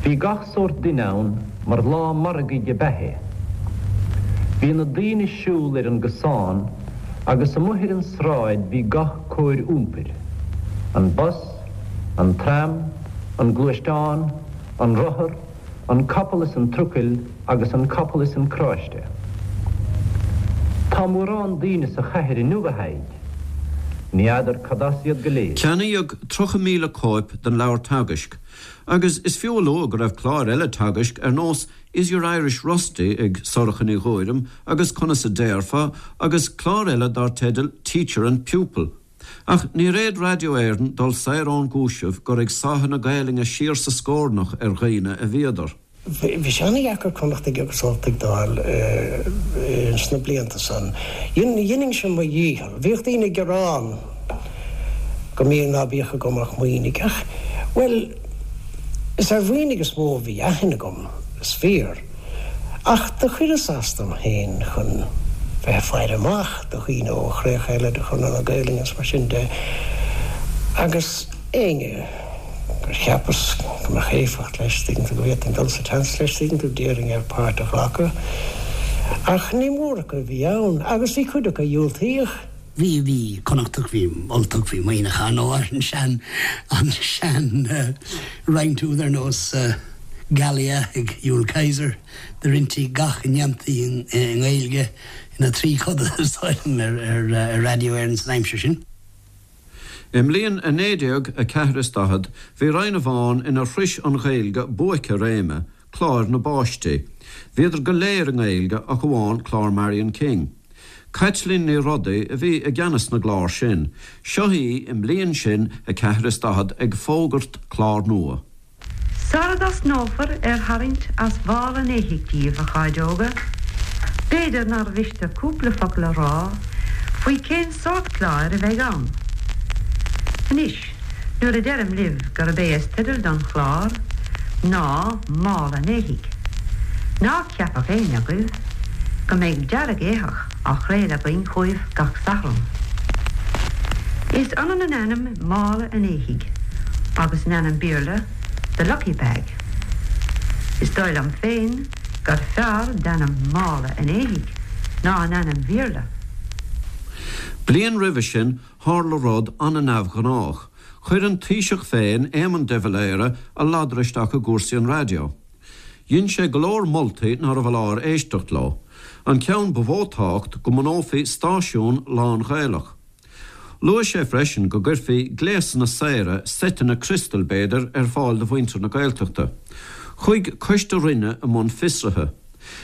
Bhí gach sórt duine ann mar lá margaidh ab ea é. Bhí na daoine ag siúl ar an gcosán agus amuigh ar an sráid bhí gach cóir iompair, an bus, an tram, an gluaisteán, an rothar, an capall is an trucail agus an capall is an carráiste. Tá mórán daoine sa chathair inniu, a Thaidhg. Ní fheadar cad as iad go léir. Ceannaíodh 30,000 cóip den leabhar teagaisc agus is fiú a lua go raibh cláir eile teagaisc ar nós Is Your Irish Rusty ag Sorcha Ní Ghuairim agus Conas a Déarfá agus clár eile dar teideal Teacher and Pupil. Ach níor fhéad Raidió Éireann dul saor ón gcúiseamh gur ag sáitheadh na Gaelainne siar sa scornach ar dhaoine a bhíodar. Bhí sé ana-dheacair Connachtaigh agus Ultaigh d'fháil ins na blianta san. Dheininn-se mo dhícheall. Bhíodh daoine ag gearán go mbíodh ná bíodh agam ach Muimhnigh ach, bhuel, is ar Mhuimhnigh is mó a bhí aithne agam, is fíor. Ach do chuireas as dom féin chun bheith ag faire amach do dhaoine ó chríocha eile de Chonradh na Gaelainne is mar sin de agus éinne gur cheapas go mbeadh éifeacht leis, tuigeann tú, go bhféadfainn dul sa tseans leis, tuigeann tú, d'iarrainn air páirt a ghlacadh. Ach ní mór acu a bhí ann agus bhí cuid acu a dhiúltaíodh. Bhí, bhí Connachtach, bhí Ultach, bhí Muimhneach ar ndóigh, an sean, an sean roinnt úd ar nós Gallia ag Jules Kaiser, do roinntí gach a ndéantaí i nGaeilge ina thrí coda is dóigh liom ar Raidió Éireann san aimsir sin. I mbliain a 1944 is bhí roinn amháin inar shrois an Ghaeilge buaic a réime, cláir na bpáistí. Bhíodar go léir i nGaeilge ach amháin clár Marion King. Caitlín Ní Rodaigh a bhí i gceannas na gclár sin. Seo í i mbliain sin a ceathair is 40 ag fógairt clár nua. Sara dtosnófar ar tharraingt as mhála an éithigh díobh, a chairde óga, b'fhéidir nár mhiste cúpla focal a rá faoi cén sórt cláir a bheidh ann. Anois, nuair a deirim libh gurb é is teideal don chlár ná Mála an Éithigh, ná ceapadh éinne agaibh go mbeidh dearg-éitheach á chraoladh againn chugaibh gach Satharn. Is ionann an ainm Mála an Éithigh agus an ainm Béarla The Lucky Bag. Is dóigh liom féin gur fearr d'ainm Mála an Éithigh ná an ainm Bhéarla. Bliain roimhe sin tharla rud an-neamhghnách. Chuir an Taoiseach féin, Éamon de Valera, a ladar isteach i gcúrsaí an raidió. Dhein sé go leor moltaí nárbh fholáir éisteacht leo. An ceann ba mhó tábhacht, go mbunófaí stáisiún lán-Ghaelach. Luaigh sé freisin go gcuirfí gléasanna saora, seiteanna criostail b'fhéidir, ar fáil do mhuintir na Gaeltachta. Chuaigh coiste Roinne i mbun fiosraithe.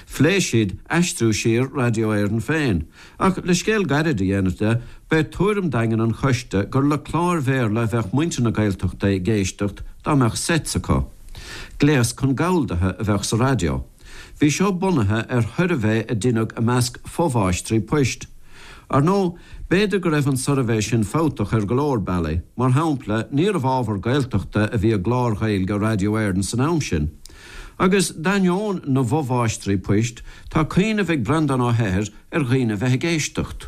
Phléigh siad aistriú siar Raidió Éireann féin. Ach le scéal gairid a dhéanamh de, b'é tuairim daingean an choiste gur le cláir Bhéarla a bheadh muintir na Gaeltachta ag éisteacht dá mbeadh sets acu. Gléas chun galldaithe a bheadh sa raidió. Bhí seo bunaithe ar shuirbhé a deineadh i measc fomháistrí poist. Ar ndóigh, b'fhéidir go raibh an suirbhé sin fabhtach ar go leor bealaí, mar shampla, níorbh ábhar Gaeltachta a bhí i gcláir Ghaeilge Raidió Éireann san am sin. Agus d'ainneoin na bhfomháistrí poist, tá cuimhneamh ag Breandán Ó hEithir ar dhaoine a bheith ag éisteacht.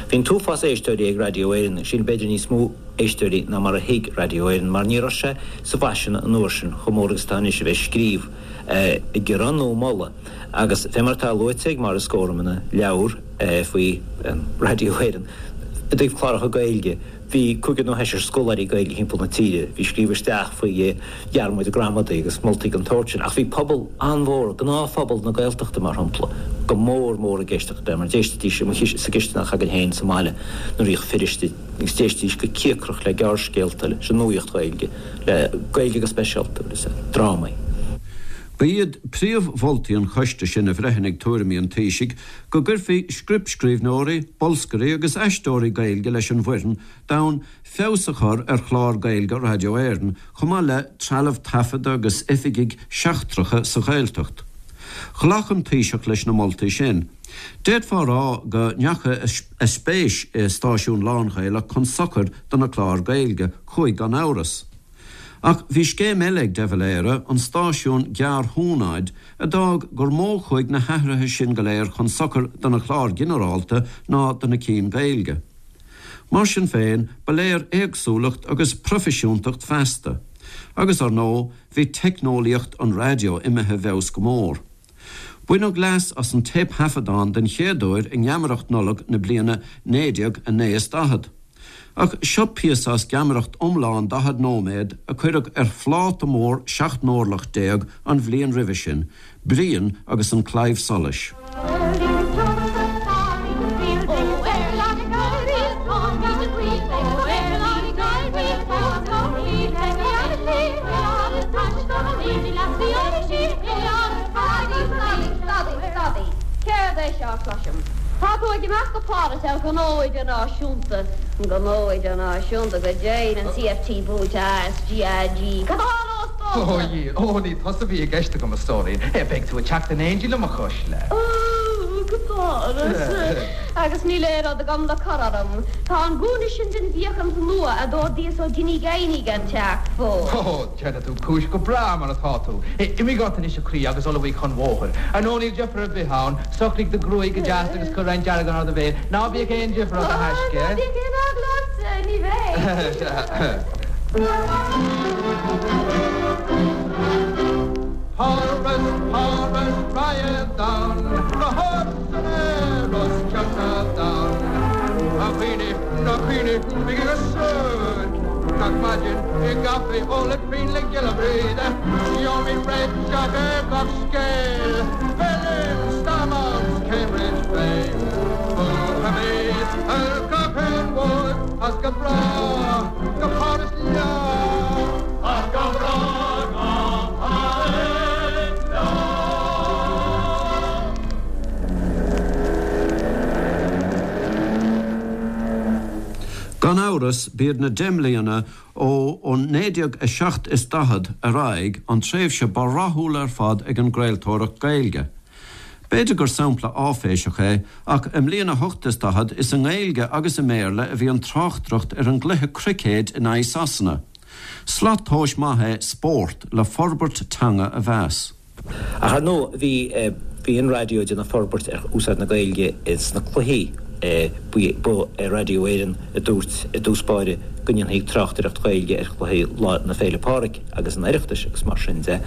Bhí an t-uafás éisteoirí ag Raidió Éireann, sin b'fhéidir níos mó éisteoirí ná mar a thuig Raidió Éireann, mar ní raibh sé sa bhfaisean an uair sin chomh mór agus atá anois a bheith ag scríobh, ag gearán nó ag moladh. Agus fé mar atá luaite ag Maurice Gorham ina leabhar faoi Raidió Éireann i dtaobh cláracha Gaeilge, Bhí cúigear nó seisear scoláirí Gaeilge thimpeall na tíre a bhí ag scríobh isteach faoi dhearmaid gramadaí agus moltaí den tsórt sin. Ach bhí pobal an-mhór, gnáthphobal na Gaeltachta mar shampla, go mór mór ag éisteacht le, mar d'éistidís sa gcisteanach againn féin sa mbaile nuair a bhíodh fir istigh agus d'éistidís go cíocrach le gearrscéalta, leis an nuaíocht Ghaeilge, le Gaeilge go speisialta agus le drámaí. Ba iad príomh-mholtaí an choiste sin a bhreithnigh tuairimí an Taoisigh go gcuirfí scriptscríbhneoirí, bolscairí agus aisteoirí Gaeilge leis an bhfoireann d'fhonn feabhas a chur ar chláir Gaeilge Raidió Éireann, chomh maith le trealamh taifeadta agus oifigigh sheachtracha sa Ghaeltacht. Ghlac an Taoiseach leis na moltaí sin. D'fhéadfá a rá go ndeachaigh a spéis i stáisiún lán-Ghaelach chun sochair do na cláir Gaeilge, chuaigh gan amhras. Ach bhí scéim eile ag de Valera, an stáisiún gearrthúnáid, a d'fhág gur mó a chuaigh na hathruithe sin go léir chun sochair do na cláir ghinearálta ná do na cinn Gaeilge. Mar sin féin, ba léir éagsúlacht agus proifisiúntacht feasta. Agus, ar ndóigh, bhí teicneolaíocht an raidió imithe i bhfeabhas go mór. Baineadh leas as an téipthaifeadán den chéad uair i nGeamaireacht Nollag na bliana 1949. Ach seo píosa as geamaireacht iomlán 40 nóiméad a cuireadh ar phláta mór 17 n-orlach an bhliain roimhe sin, Brian agus an Claidheamh Soluis. Céard é seo a chloisim? Tá tú ag imeacht go Páras ar ghnó idirnáisiúnta. Gnó idirnáisiúnta go deimhin, an CFT buailte ASGAG. Cad a tharlós domsa? Ó, a Dhia, ó, ní tusa a bhí i gceist agam, a stóirín. Beidh tú ag teacht in éindí liom, a chuisle. Ó, go Páras. Agus níl aon rud agam le cur orm. Tá an gúna sin den bhfiachaint nua a d'ordaíos ó Dinny Guiney gan teacht fós. Ó, déanfaidh tú cúis go breá mar atá tú. Imigh ort anois, a chroí, agus ullmhaigh chun bhóthair. Ar ndóigh, níl deifir ar bith ann. Socraigh do ghruaig go deas agus cuir roinnt deargáin ar do bhéal. Ná bíodh aon deifir ort, a thaisce. Ná bíodh aon eagla ortsa, ní bheidh. Páras, Páras, raghad ann, go hard san aer os cionn an domhain. A dhaoine, a dhaoine, bígí go suairc gach maidin i gcaife ólaid pingin le Giolla Bhríde. Gheobhaimid réiteach ar gach scéal, Berlin, Stormont, Cambridge féin. Buafaimid ar gach aon bhord as go brách go Páras leo. As go brách go Páras leo. Gan amhras, b'iad na deich mbliana ó 1947 ar aghaidh an tréimhse ba rathúla ar fad ag an gcraoltóireacht Gaeilge. B'fhéidir gur sampla áiféiseach é, ach i mbliain 48 is i nGaeilge agus i mBéarla a bhí an tráchtaireacht ar an gcluiche cruicéid in aghaidh Sasana. Slat tomhais maith é spórt le forbairt teanga a mheas. Ach ar ndóigh bhí bhí an raidió ag déanamh forbairt ar úsáid na Gaeilge sna cluichí. Ba é Raidió Éireann a dúirt i dtús báire go ndéanfaí tráchtaireacht Ghaeilge ar chluichí Lá na Féile Pádraig agus an Oireachtais agus mar sin de.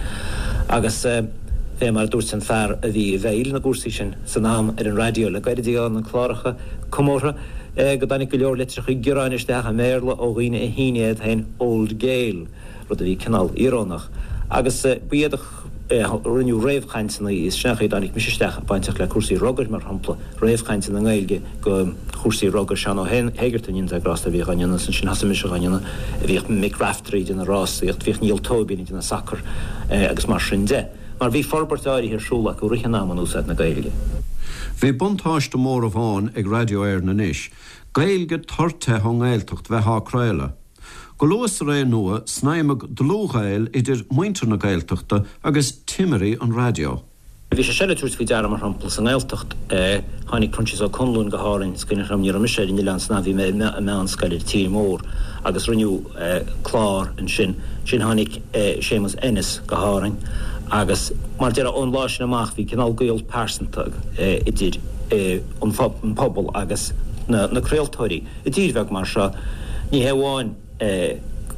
Agus fé mar a dúirt an fear a bhí i bhfeighil na gcúrsaí sin san am ar an raidió le gairid ag na cláracha comórtha go dtáinig go leor litreacha gearáin isteach i mBéarla ó dhaoine a shínigh iad féin Old Gael. rud a bhí cineál íorónach. Agus ba iad a rinneadh réamhchainteanna, is sin an chaoi a dtáinig mise isteach, bainteach le cúrsaí rugair, mar shampla, réamhchainteanna i nGaeilge go chúrsaí rugair, Seán Ó hÉigeartaigh, go ndéana Dia grásta air, a bhíodh á ndéanamh, ansin thosaigh mise á ndéanamh, bhíodh Mick Raftery ag déanamh rásaíocht, bhíodh Niall Tóibín ag déanamh sacar agus mar sin de. Mar bhí forbairt áirithe ar siúl acu i rith an ama in úsáid na Gaeilge. Bhí buntáiste mór amháin ag Raidió Éireann anois, Gaeilge tur te ón nGaeltacht bheith á craoladh. Go luath sa ré nua, snaidhmeadh dlúthghaol idir muintir na Gaeltachta agus timirí an raidió. Bhí sé seo le tabhairt faoi deara, mar shampla, sa nGaeltacht. Tháinig Proinsias Ó Conluain go hÁrainn, is cuimhin liom, ní raibh mise ar an oileán san am, bhí mé i meánscoil ar an tír mór, agus rinneadh clár ansin. Ansin tháinig Séamus Ennis go hÁrainn agus, mar déarfá, ón lá sin amach bhí cineál gaol pearsanta idir an pobal agus na craoltóirí. I dtír bheag mar seo, ní hé amháin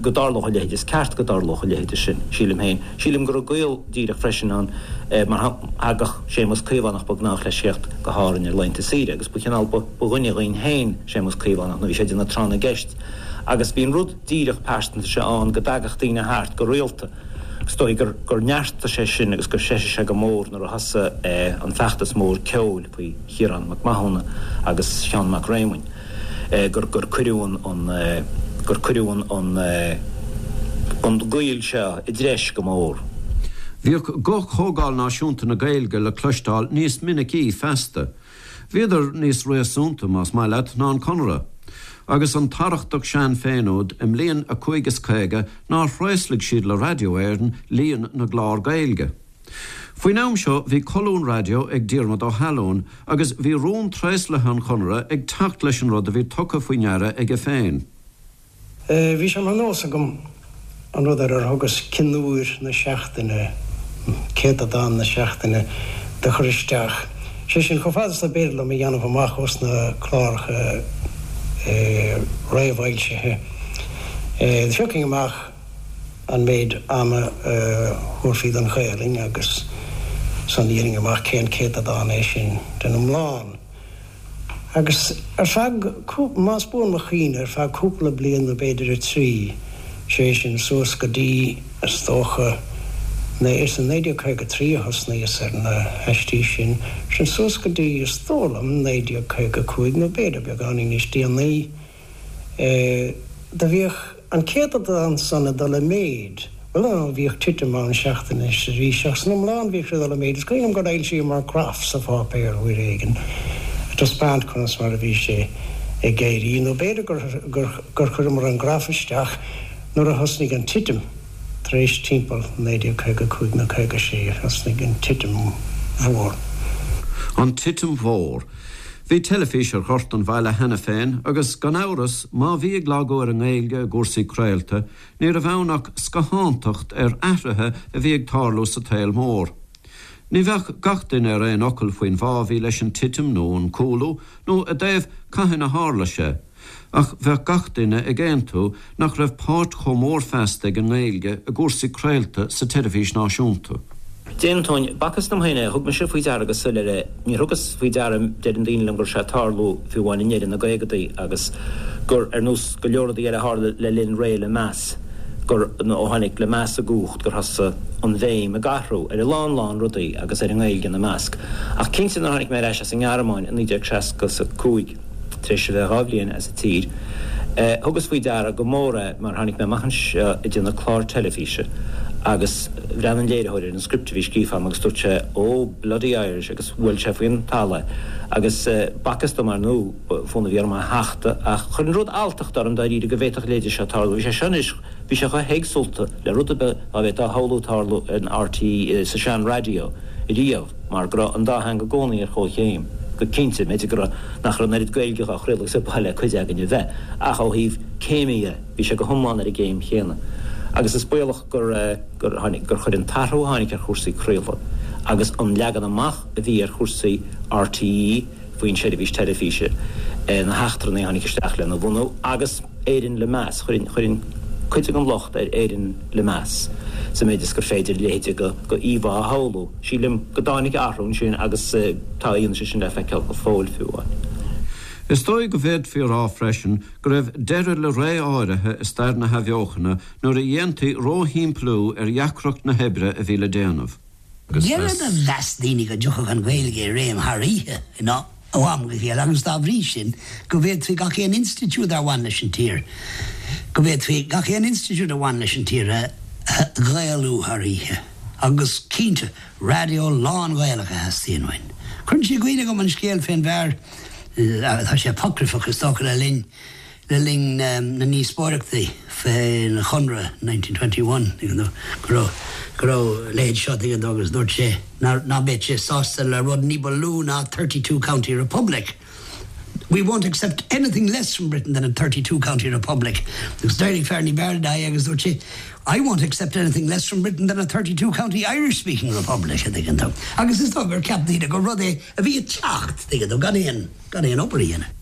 go dtarlódh a leithéid, is ceart go dtarlódh a leithéid sin, sílim féin. Sílim go raibh gaol díreach freisin ann mar thagadh Séamus Caomhánach, ba ghnách leis theacht go hÁrainn ar laethanta saoire agus ba chineál, ba dhuine dhínn féin Séamus Caomhánach nuair a bhí sé ag déanamh tráth na gceist agus bhí an rud díreach pearsanta seo ann go dtagadh daoine thart go rialta. Is dóigh gur neartaigh sé sin agus gur threisigh sé go mór nuair a thosaigh an feachtas mór ceoil faoi Chiarán Mac Mathúna agus Seán Mac Réamoinn. gur gur cuireadh an gur cuireadh an an gaol seo i dtreis go mór. Bhíodh guth Chomhdháil Náisiúnta na Gaeilge le cloisteáil níos minicí feasta. Bhíodar níos réasúnta, más maith leat, ná an Conradh. Agus an t-arrachtach sean féin úd, i mbliain a cúig is 50, nár thraoslaigh siad le Raidió Éireann líon na gclár Gaeilge. Faoin am seo bhí colún raidió ag Diarmuid Ó hAlúin agus bhí rún traoslaithe an Chonartha ag teacht leis an rud a bhí tugtha faoi ndeara aige féin. Bhí sé mar nós agam. an rud ar ar thugas cionúir na seachtaine, céatadán na seachtaine, do chur isteach. Sé sin, chomh fada is dob fhéidir liom a dhéanamh amach ós na cláracha réamhfhoilsithe, do phiocfainn amach an méid ama a thabharfaí don Ghaelainn agus ansan dhéanfainn amach cén céatadán é sin den iomlán. Agus ar feadh, más buan mo chuimhne, ar feadh cúpla bliain nó b'fhéidir 3, sé sin suas go dtí, is dócha, is i 1953 a thosnaíos ar na haistí sin, sin suas go dtí, is dóigh liom, 1955 nó b'fhéidir beagáinín níos déanaí. Do bhíodh an céatadán san ag dul i méid. Bhuel, ar ndóigh, bhíodh titim ann seachtain is arís, ach san iomlán bhíodh sé ag dul i méid. Is cuimhin liom gur fhoilsíomar graf sa pháipéar uair éigin ag taispeáint conas mar a bhí sé ag éirí, nó b'fhéidir gur chuireamar an graf isteach nuair a thosnaigh an titim, tar éis timpeall 1955 nó 56, thosnaigh an titim mhór. An titim mhór. Bhí teilifís ar ghort an bhaile cheana féin agus, gan amhras, má bhí ag lagú ar an nGaeilge i gcúrsaí craolta, ní raibh ann ach scáthántacht ar athruithe a bhí ag tarlú sa tsaol mór. Ní bheadh gach duine ar aon fhocal faoin bhfáth a bhí leis an titim nó an cúlú, nó i dtaobh cathain a tharla sé. Ach bheadh gach duine ag aontú nach raibh páirt chomh mór feasta ag an nGaeilge i gcúrsaí craolta sa teilifís náisiúnta. D'aontóinn. B'fhacthas dom féin é. Thug mise faoi deara go soiléir é. Níor thugas faoi deara, deireann daoine liom, go raibh sé ag tarlú fiú amháin i ndeireadh na gcaogadaí agus gur, ar nós go leor rudaí eile a tharla le linn ré Lemass, gur, nó ó tháinig Lemass i gcumhacht, gur thosaigh an bhéim ag athrú ar a lán lán rudaí agus ar an nGaeilge ina measc. Ach cinnte nuair a tháinig mé ar ais as an nGearmáin i 1965, Tar éis a bheith 2 bhliain as an tír, thugas faoi deara go mór é mar tháinig mé amach anseo ag déanamh clár teilifíse agus bhreathnaigh an léiritheoir ar an script a bhí scríofa agam agus dúirt sé Oh, bloody Irish agus bhuail sé faoin talamh é. Agus b'fhacthas dom, ar ndóigh, fonn a bhí orm é a thachtadh ach chuir an rud alltacht orm dáiríre go bhféadfadh a leithéid seo tarlú. Bhí sé seo anois, bhí sé chomh héagsúlta le rud ar bith dá bhféadfá a shamhlú tarlú in RTÉ sa sean-raidió riamh. mar go raibh an dá theanga i gcónaí ar chomhchéim, go cinnte, b'fhéidir go raibh, nach raibh an oiread Gaeilge á chraoladh agus ba mhaith le cuid againn a bheith, ach ó thaobh céime dhe, bhí sé go hiomlán ar an gcéim chéanna. Agus is baolach gur, gur tháinig, gur chuir an t-athrú a tháinig ar chúrsaí craolta agus an leagan amach a bhí ar chúrsaí RTÉ faoin seirbhís teilifíse, na heachtrannaigh a tháinig isteach lena bhunú agus Éirinn le meas, chuirfinn, chuirfinn cuid den locht ar Éirinn le meas, sa méid is gur féidir a leithéid de íomhá a shamhlú. Sílim go dtáinig athrú ansin agus tá a fhianaise sin le feiceáil go fóill fiú amháin. Is dóigh go bhféadfaí a rá freisin go raibh deireadh le ré áirithe i stair na hathbheochana nuair a dhéantaí róshimpliú ar dheacracht na hoibre a bhí le déanamh. Agus a mheas daoine go dtiocfadh an Ghaeilge i réim thar oíche ó am go chéile agus dá bhrí sin go bhféadfaí gach aon institiúid ar bhain leis an tír go bhféadfaí gach aon institiúid a bhain leis an tír a Ghaelú thar oíche. Agus cinnte, raidió lán-Ghaelach a theastaíonn uainn. Cuireann sé i gcuimhne dhom an scéal fén bhfear, tá sé apocryphach is dócha, le linn le linn na ndíospóireachtaí fén Chonradh 1921, tuigeann tú, go raibh go raibh a leithéid seo, tuigeann tú, agus dúirt sé ná ná beadh sé sásta le rud ní ba lú ná 32 county republic. We won't accept anything less from Britain than a 32 county republic. Agus d'éirigh fear ní b'fhearr ná é agus dúirt sé, I won't accept anything less from Britain than a 32 county Irish speaking republic, a dtuigeann tú. Agus is dóigh gur cheap daoine gur rud é a bhí ag teacht, tuigeann tú, gan aon, gan aon obair a dhéanamh.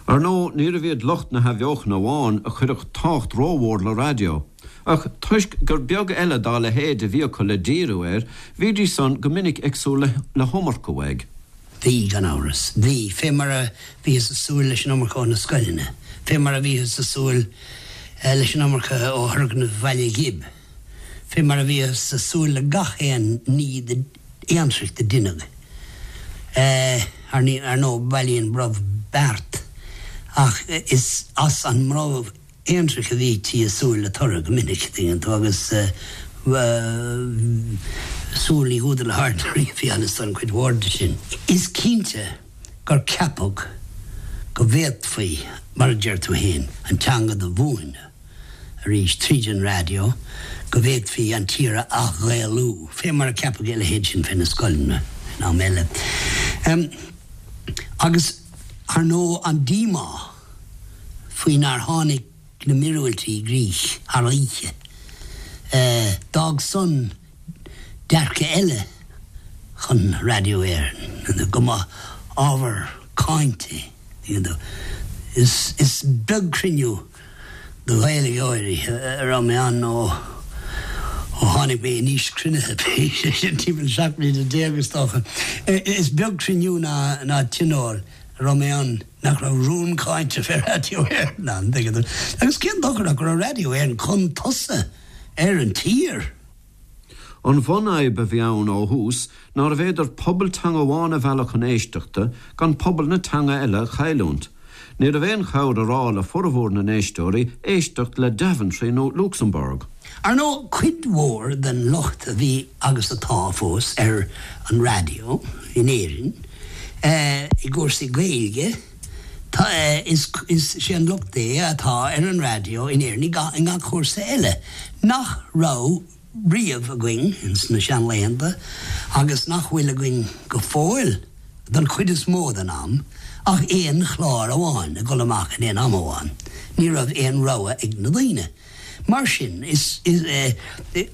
Ar ndóigh, níorbh iad lucht na hathbheochana amháin a chuirfeadh tábhacht rómhór le raidió. Ach toisc gur beag eile dá leithéid a bhí acu le díriú air, bhídís san go minic ag súil le hiomarca uaidh. Bhí, gan amhras. Bhí, fé mar a bhíothas ag súil leis an iomarca ó na scoileanna, fé mar a bhíothas ag súil leis an iomarca ó thurgnaimh Bhaile Ghib, fé mar a bhíothas ag súil le gach aon ní aontraic do deineadh. Ar ndóigh, bailíonn brobh beart, ach is as an mbrobh aontraic a bhítí ag súil le toradh go minic, tuigeann tú, agus súil ní húdar le haird a bhí ann is don chuid mhór de sin. Is cinnte gur ceapadh go bhféadfaí, mar a deir tú féin, an teanga do mhúineadh arís tríd an raidió, go bhféadfaí an tír a ath-Ghaelú, fé mar a ceapadh a leithéid sin fé na scoileanna in am eile. Agus, ar ndóigh, an díomá. faoi nár tháinig na míorúiltí i gcrích thar oíche. D'fhág san dearcadh eile chun Raidió Éireann, go mba ábhar cáinte iad. Is beag cruinniú do Ghaeilgeoirí a raibh mé ann ó tháinig mé in aois cruinnithe, sé sin timpeall 17 mbliana is dócha. Is beag cruinniú ná tionól a raibh mé ann nach raibh rún cáinte fé Raidió Éireann ann, tuigeann tú. Agus cén dochar ach go raibh Raidió Éireann chun tosaigh ar an tír. An bhunfhadhb a bhí ann ó thús nárbh fhéidir pobal teanga amháin a mhealladh chun éisteachta gan pobal na teanga eile a chailliúint. Ní raibh aon chabhair a rá le formhór na n-éisteoirí éisteacht le Daventry nó Luxembourg. Ar ndóigh, cuid mhór den lucht a bhí agus atá fós ar an raidió in Éirinn i gcúrsaí Gaeilge, tá, is é an lucht é atá ar an raidió in Éirinn i ngach cúrsa eile nach raibh riamh againn ins na seanlaethanta agus nach bhfuil againn go fóill don chuid is mó den am ach aon chlár amháin ag dul amach in aon am amháin. Ní raibh aon rogha ag na daoine. Mar sin, is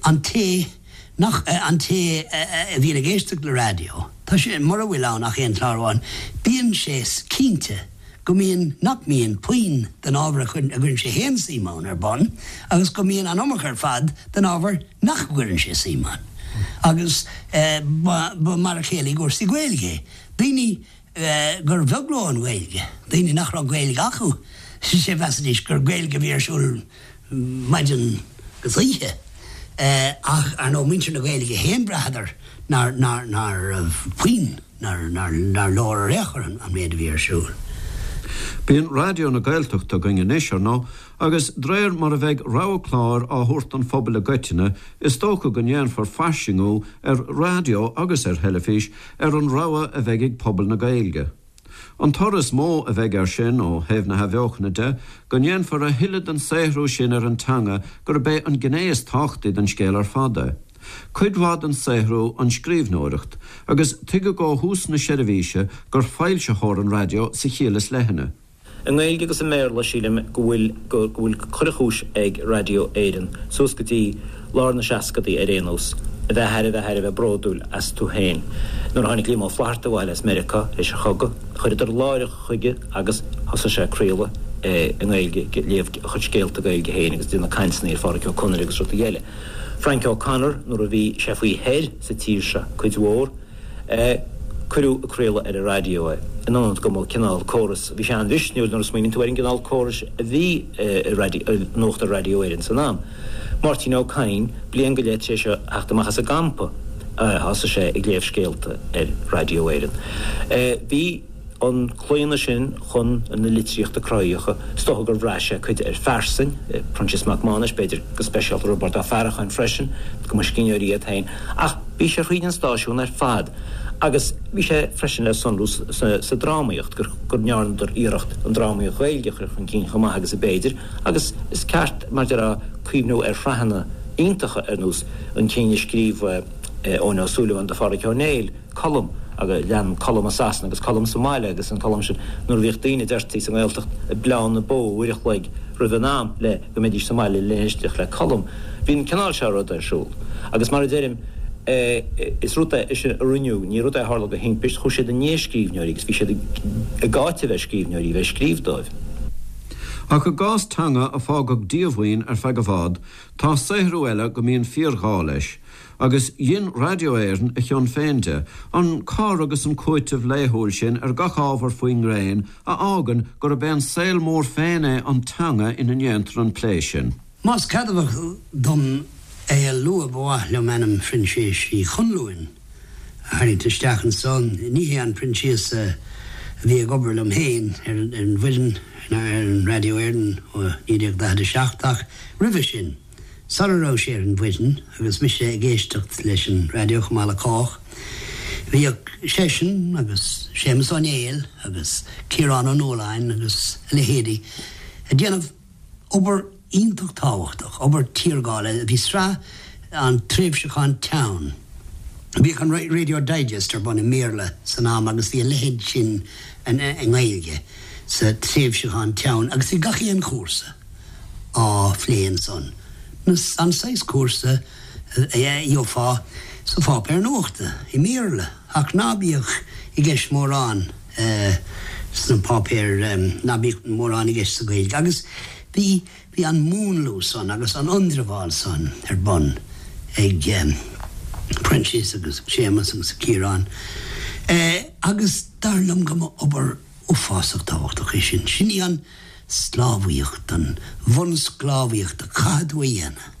an té nach, an té a bhíonn ag éisteacht le raidió, tá sé, mura bhfuil ann ach aon chlár amháin, bíonn sé cinnte go mbíonn, nach mbíonn puinn den ábhar a gcuireann sé féin suim ann ar bun agus go mbíonn an iomarca ar fad den ábhar nach gcuireann sé suim ann. Agus ba mar a chéile i gcúrsaí Gaeilge é. Daoine gur bheag leo an Ghaeilge, daoine nach raibh Gaeilge acu, sé mheasaidís gur Gaeilge a bhí ar siúl maidin agus oíche. Ach ar ndóigh muintir na Gaeilge féin bhraitheadar nár raibh puinn. nár leor ar aon chor an méid a bhí ar siúl. Bíonn Raidió na Gaeltachta againn anois, ar ndóigh, agus d'réir mar a bheidh rogha cláir á thabhairt don phobal i gcoitinne, is dócha go ndéanfar fairsingiú ar raidió agus ar theilifís ar an rogha a bheidh ag pobal na Gaeilge. An toradh is mó a bheidh air sin, ó thaobh na hathbheochana de, go ndéanfar a thuilleadh den saothrú sin ar an teanga gurb é an gné is tábhachtaí den scéal ar fad é. Cuid mhaith den saothrú an scríbhneoireacht, agus tuigeadh ó thús na seirbhíse gur foilsitheoir an raidió sa chiall is leithne. I nGaeilge agus i mBéarla, sílim go bhfuil go bhfuil chuile chúis ag Raidió Éireann, suas go dtí lár na seascadaí ar aon nós, a bheith thar a bheith thar a bheith bródúil astu féin. Nuair a tháinig Liam Ó Flaithearta abhaile as Meiriceá théis an chogaidh, chuireadar láithreach chuige agus thosaigh sé ag craoladh i nGaeilge, ag léamh a chuid scéalta Gaeilge féin agus ag déanamh cainteanna ar Phádraic Ó Conaire agus rudaí eile. Frank O'Connor, nuair a bhí sé faoi thoir sa tír seo cuid mhór, cuireadh ag craoladh ar an raidió é, in ionad go mba cineál córas, bhí sé an-mhisniúil nuair a smaoiníonn tú ar an gcineál córais a bhí i Nuacht ar Raidió Éireann san am. Máirtín Ó Cadhain, bliain go leith tar éis a theacht amach as an gcampa, thosaigh sé ag léamh scéalta ar Raidió Éireann. Bhí. an claonadh sin chun na litríochta cruthaíocha, is dócha gur bhraith sé cuid ar phearsain, Proinsias Mac Mánais, b'fhéidir, go speisialta, Roibeárd Ó Faracháin freisin, go mba scríbhneoirí iad féin, ach bhí sé thríd an stáisiún ar fad agus bhí sé freisin le sonrú sa drámaíocht, go ndearnadar iarracht an drámaíocht Ghaeilge a chur chun cinn chomh maith agus a b'fhéidir, agus is ceart, mar a déarfá, cuimhniú ar shraitheanna iontacha ar nós an cinn a scríobh Eoin Ó Súilleabháin do Phádhraic Ó Néill. Colm, agus lean Colm i Sasana agus Colm sa mbaile agus an Colm sin nuair a bhíodh daoine deirtí sa nGaeltacht ag bleán na bó uair a chloig roimh an am le go mbeidís sa mbaile le éisteacht le Colm. Bhí an cineál seo ruda ar siúl. Agus mar a deirim, is rud é sin a rinneadh, ní rud é a tharla de thimpist, chuaigh siad i ndiaidh scríbhneoirí agus bhí siad ag áiteamh ar scríbhneoirí bheith ag scríobh dóibh. Ach i gcás teanga a fágadh díomhaoin ar feadh i bhfad, tá saothrú eile go mbíonn fíorghá leis. Agus dhein Raidió Éireann a chion féin de, an cur agus an cúiteamh laethúil sin ar gach ábhar faoin ngréin a fhágann gurb é an saol mór féin é an teanga ina ndéantar an plé sin. Más ceadmhach dom é a lua ba mhaith liom ainm Phroinsiais Uí Chonluain a tharraingt isteach anso. Ní hé an Proinsias a bhí ag obair liom féin ar an bhfoireann ar an Raidió Éireann ó 1947 ach roimhe sin. Sara raibh sé ar an bhfoireann, agus mise ag éisteacht leis an raidió chomh maith le cách, bhíodh seisean agus Séamus Ó Néill agus Ciarán Ó Nualláin agus a leithéidí ag déanamh obair iontach tábhachtach, obair tiargála. Bhí sraith an tréimhseachán teann. Bhíodh an Radio Digest ar bun i mBéarla san am agus bhí a leithéid sin i nGaeilge sa tréimhseachán teann agus bhí gach aon chúrsa. á phlé ansan. An saghas cúrsa a gheofá sa pháipéar nuachta, i mBéarla, ach ná bíodh i gceist mórán sna páipéir, ná bíodh mórán i gceist sa Ghaeilge. Agus bhí, bhí an múnlú san agus an ionramháil san ar bun ag Proinsias agus Séamus agus Ciarán. Agus dar liom go mba obair uafásach tábhachtach é sin. Sin í an sclábhaíocht, an bhunsclábhaíocht a chaithfidh tú a dhéanamh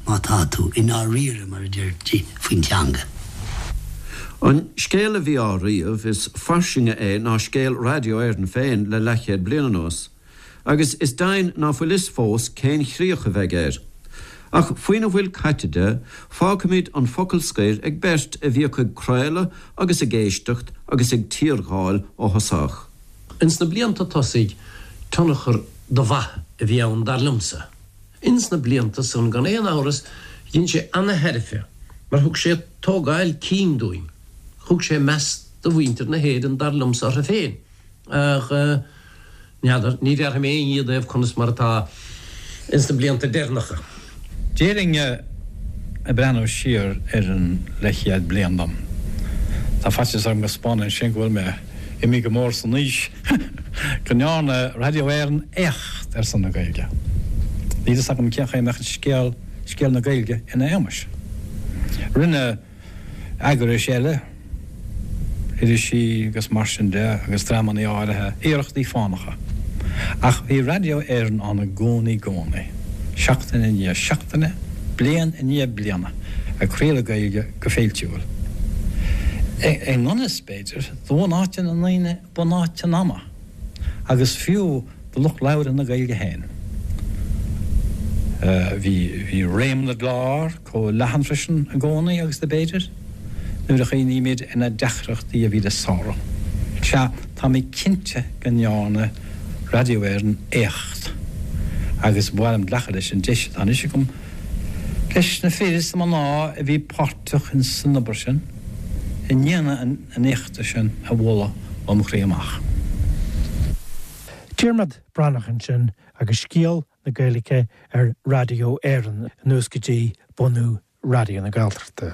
má tá tú i ndáiríre, mar a deirtí, faoin teanga. An scéal a bhí á ríomh, is fairsinge é ná scéal Raidió Éireann féin le leathchéad bliain anuas, agus is deimhin ná fuil fhios fós cén chríoch a bheidh air. Ach faoina bhfuil caite de, fágfaimid an focal scoir ag beirt a bhíodh ag craoladh agus ag éisteacht agus ag tírgháil ó thosach. Ins na blianta tosaigh, tionchar do mhaith a bhí ann dar liomsa. Ins na blianta san, gan aon amhras, dhein sé ana-thairbhe mar thug sé tógáil cinn dúinn. Thug sé meas do mhuintir na hÉireann dar liomsa orthu féin. Ach n'fheadar, ní bhéarfaidh mé aon ní i dtaobh conas mar atá ins na blianta deireanacha. Déarfainn ag breathnú siar ar an leathchéad bliain dom, tá faitíos orm go 'spáineann sin go bhfuil mé imithe go mór san aois, go ndearna Raidió Éireann éacht ar son na Gaeilge. Níl fhios agam cén chaoi a mbeadh scéal, scéal na Gaeilge ina éagmais. Rinne. eagrais eile, irisí agus mar sin de agus dreamanna áirithe, iarrachtaí fánacha. Ach bhí Raidió Éireann ann i gcónaí gcónaí, seachtain i ndiaidh seachtaine, bliain i ndiaidh bliana, ag craoladh Gaeilge go féiltiúil. I ngan fhios, b'fhéidir, do bhunáite na ndaoine bunáite an ama. agus fiú do lucht labhartha na Gaeilge féin. Bhí réim na gclár chomh leathan freisin i gcónaí agus do b'fhéidir, nuair a chuimhnímid ar na deacrachtaí a bhí le sárú. Sea, tá mé cinnte go ndearna Raidió Éireann éacht agus ba mhaith liom glacadh leis an deis atá anois agam leis na fir is na mná a bhí páirteach ins an obair sin i ndéanamh an éachta sin a mholadh ó mo chroí amach. Diarmaid Breathnach ansin agus scéal na Gaeilge ar Raidió Éireann anuas go dtí bunú Raidió na Gaeltachta.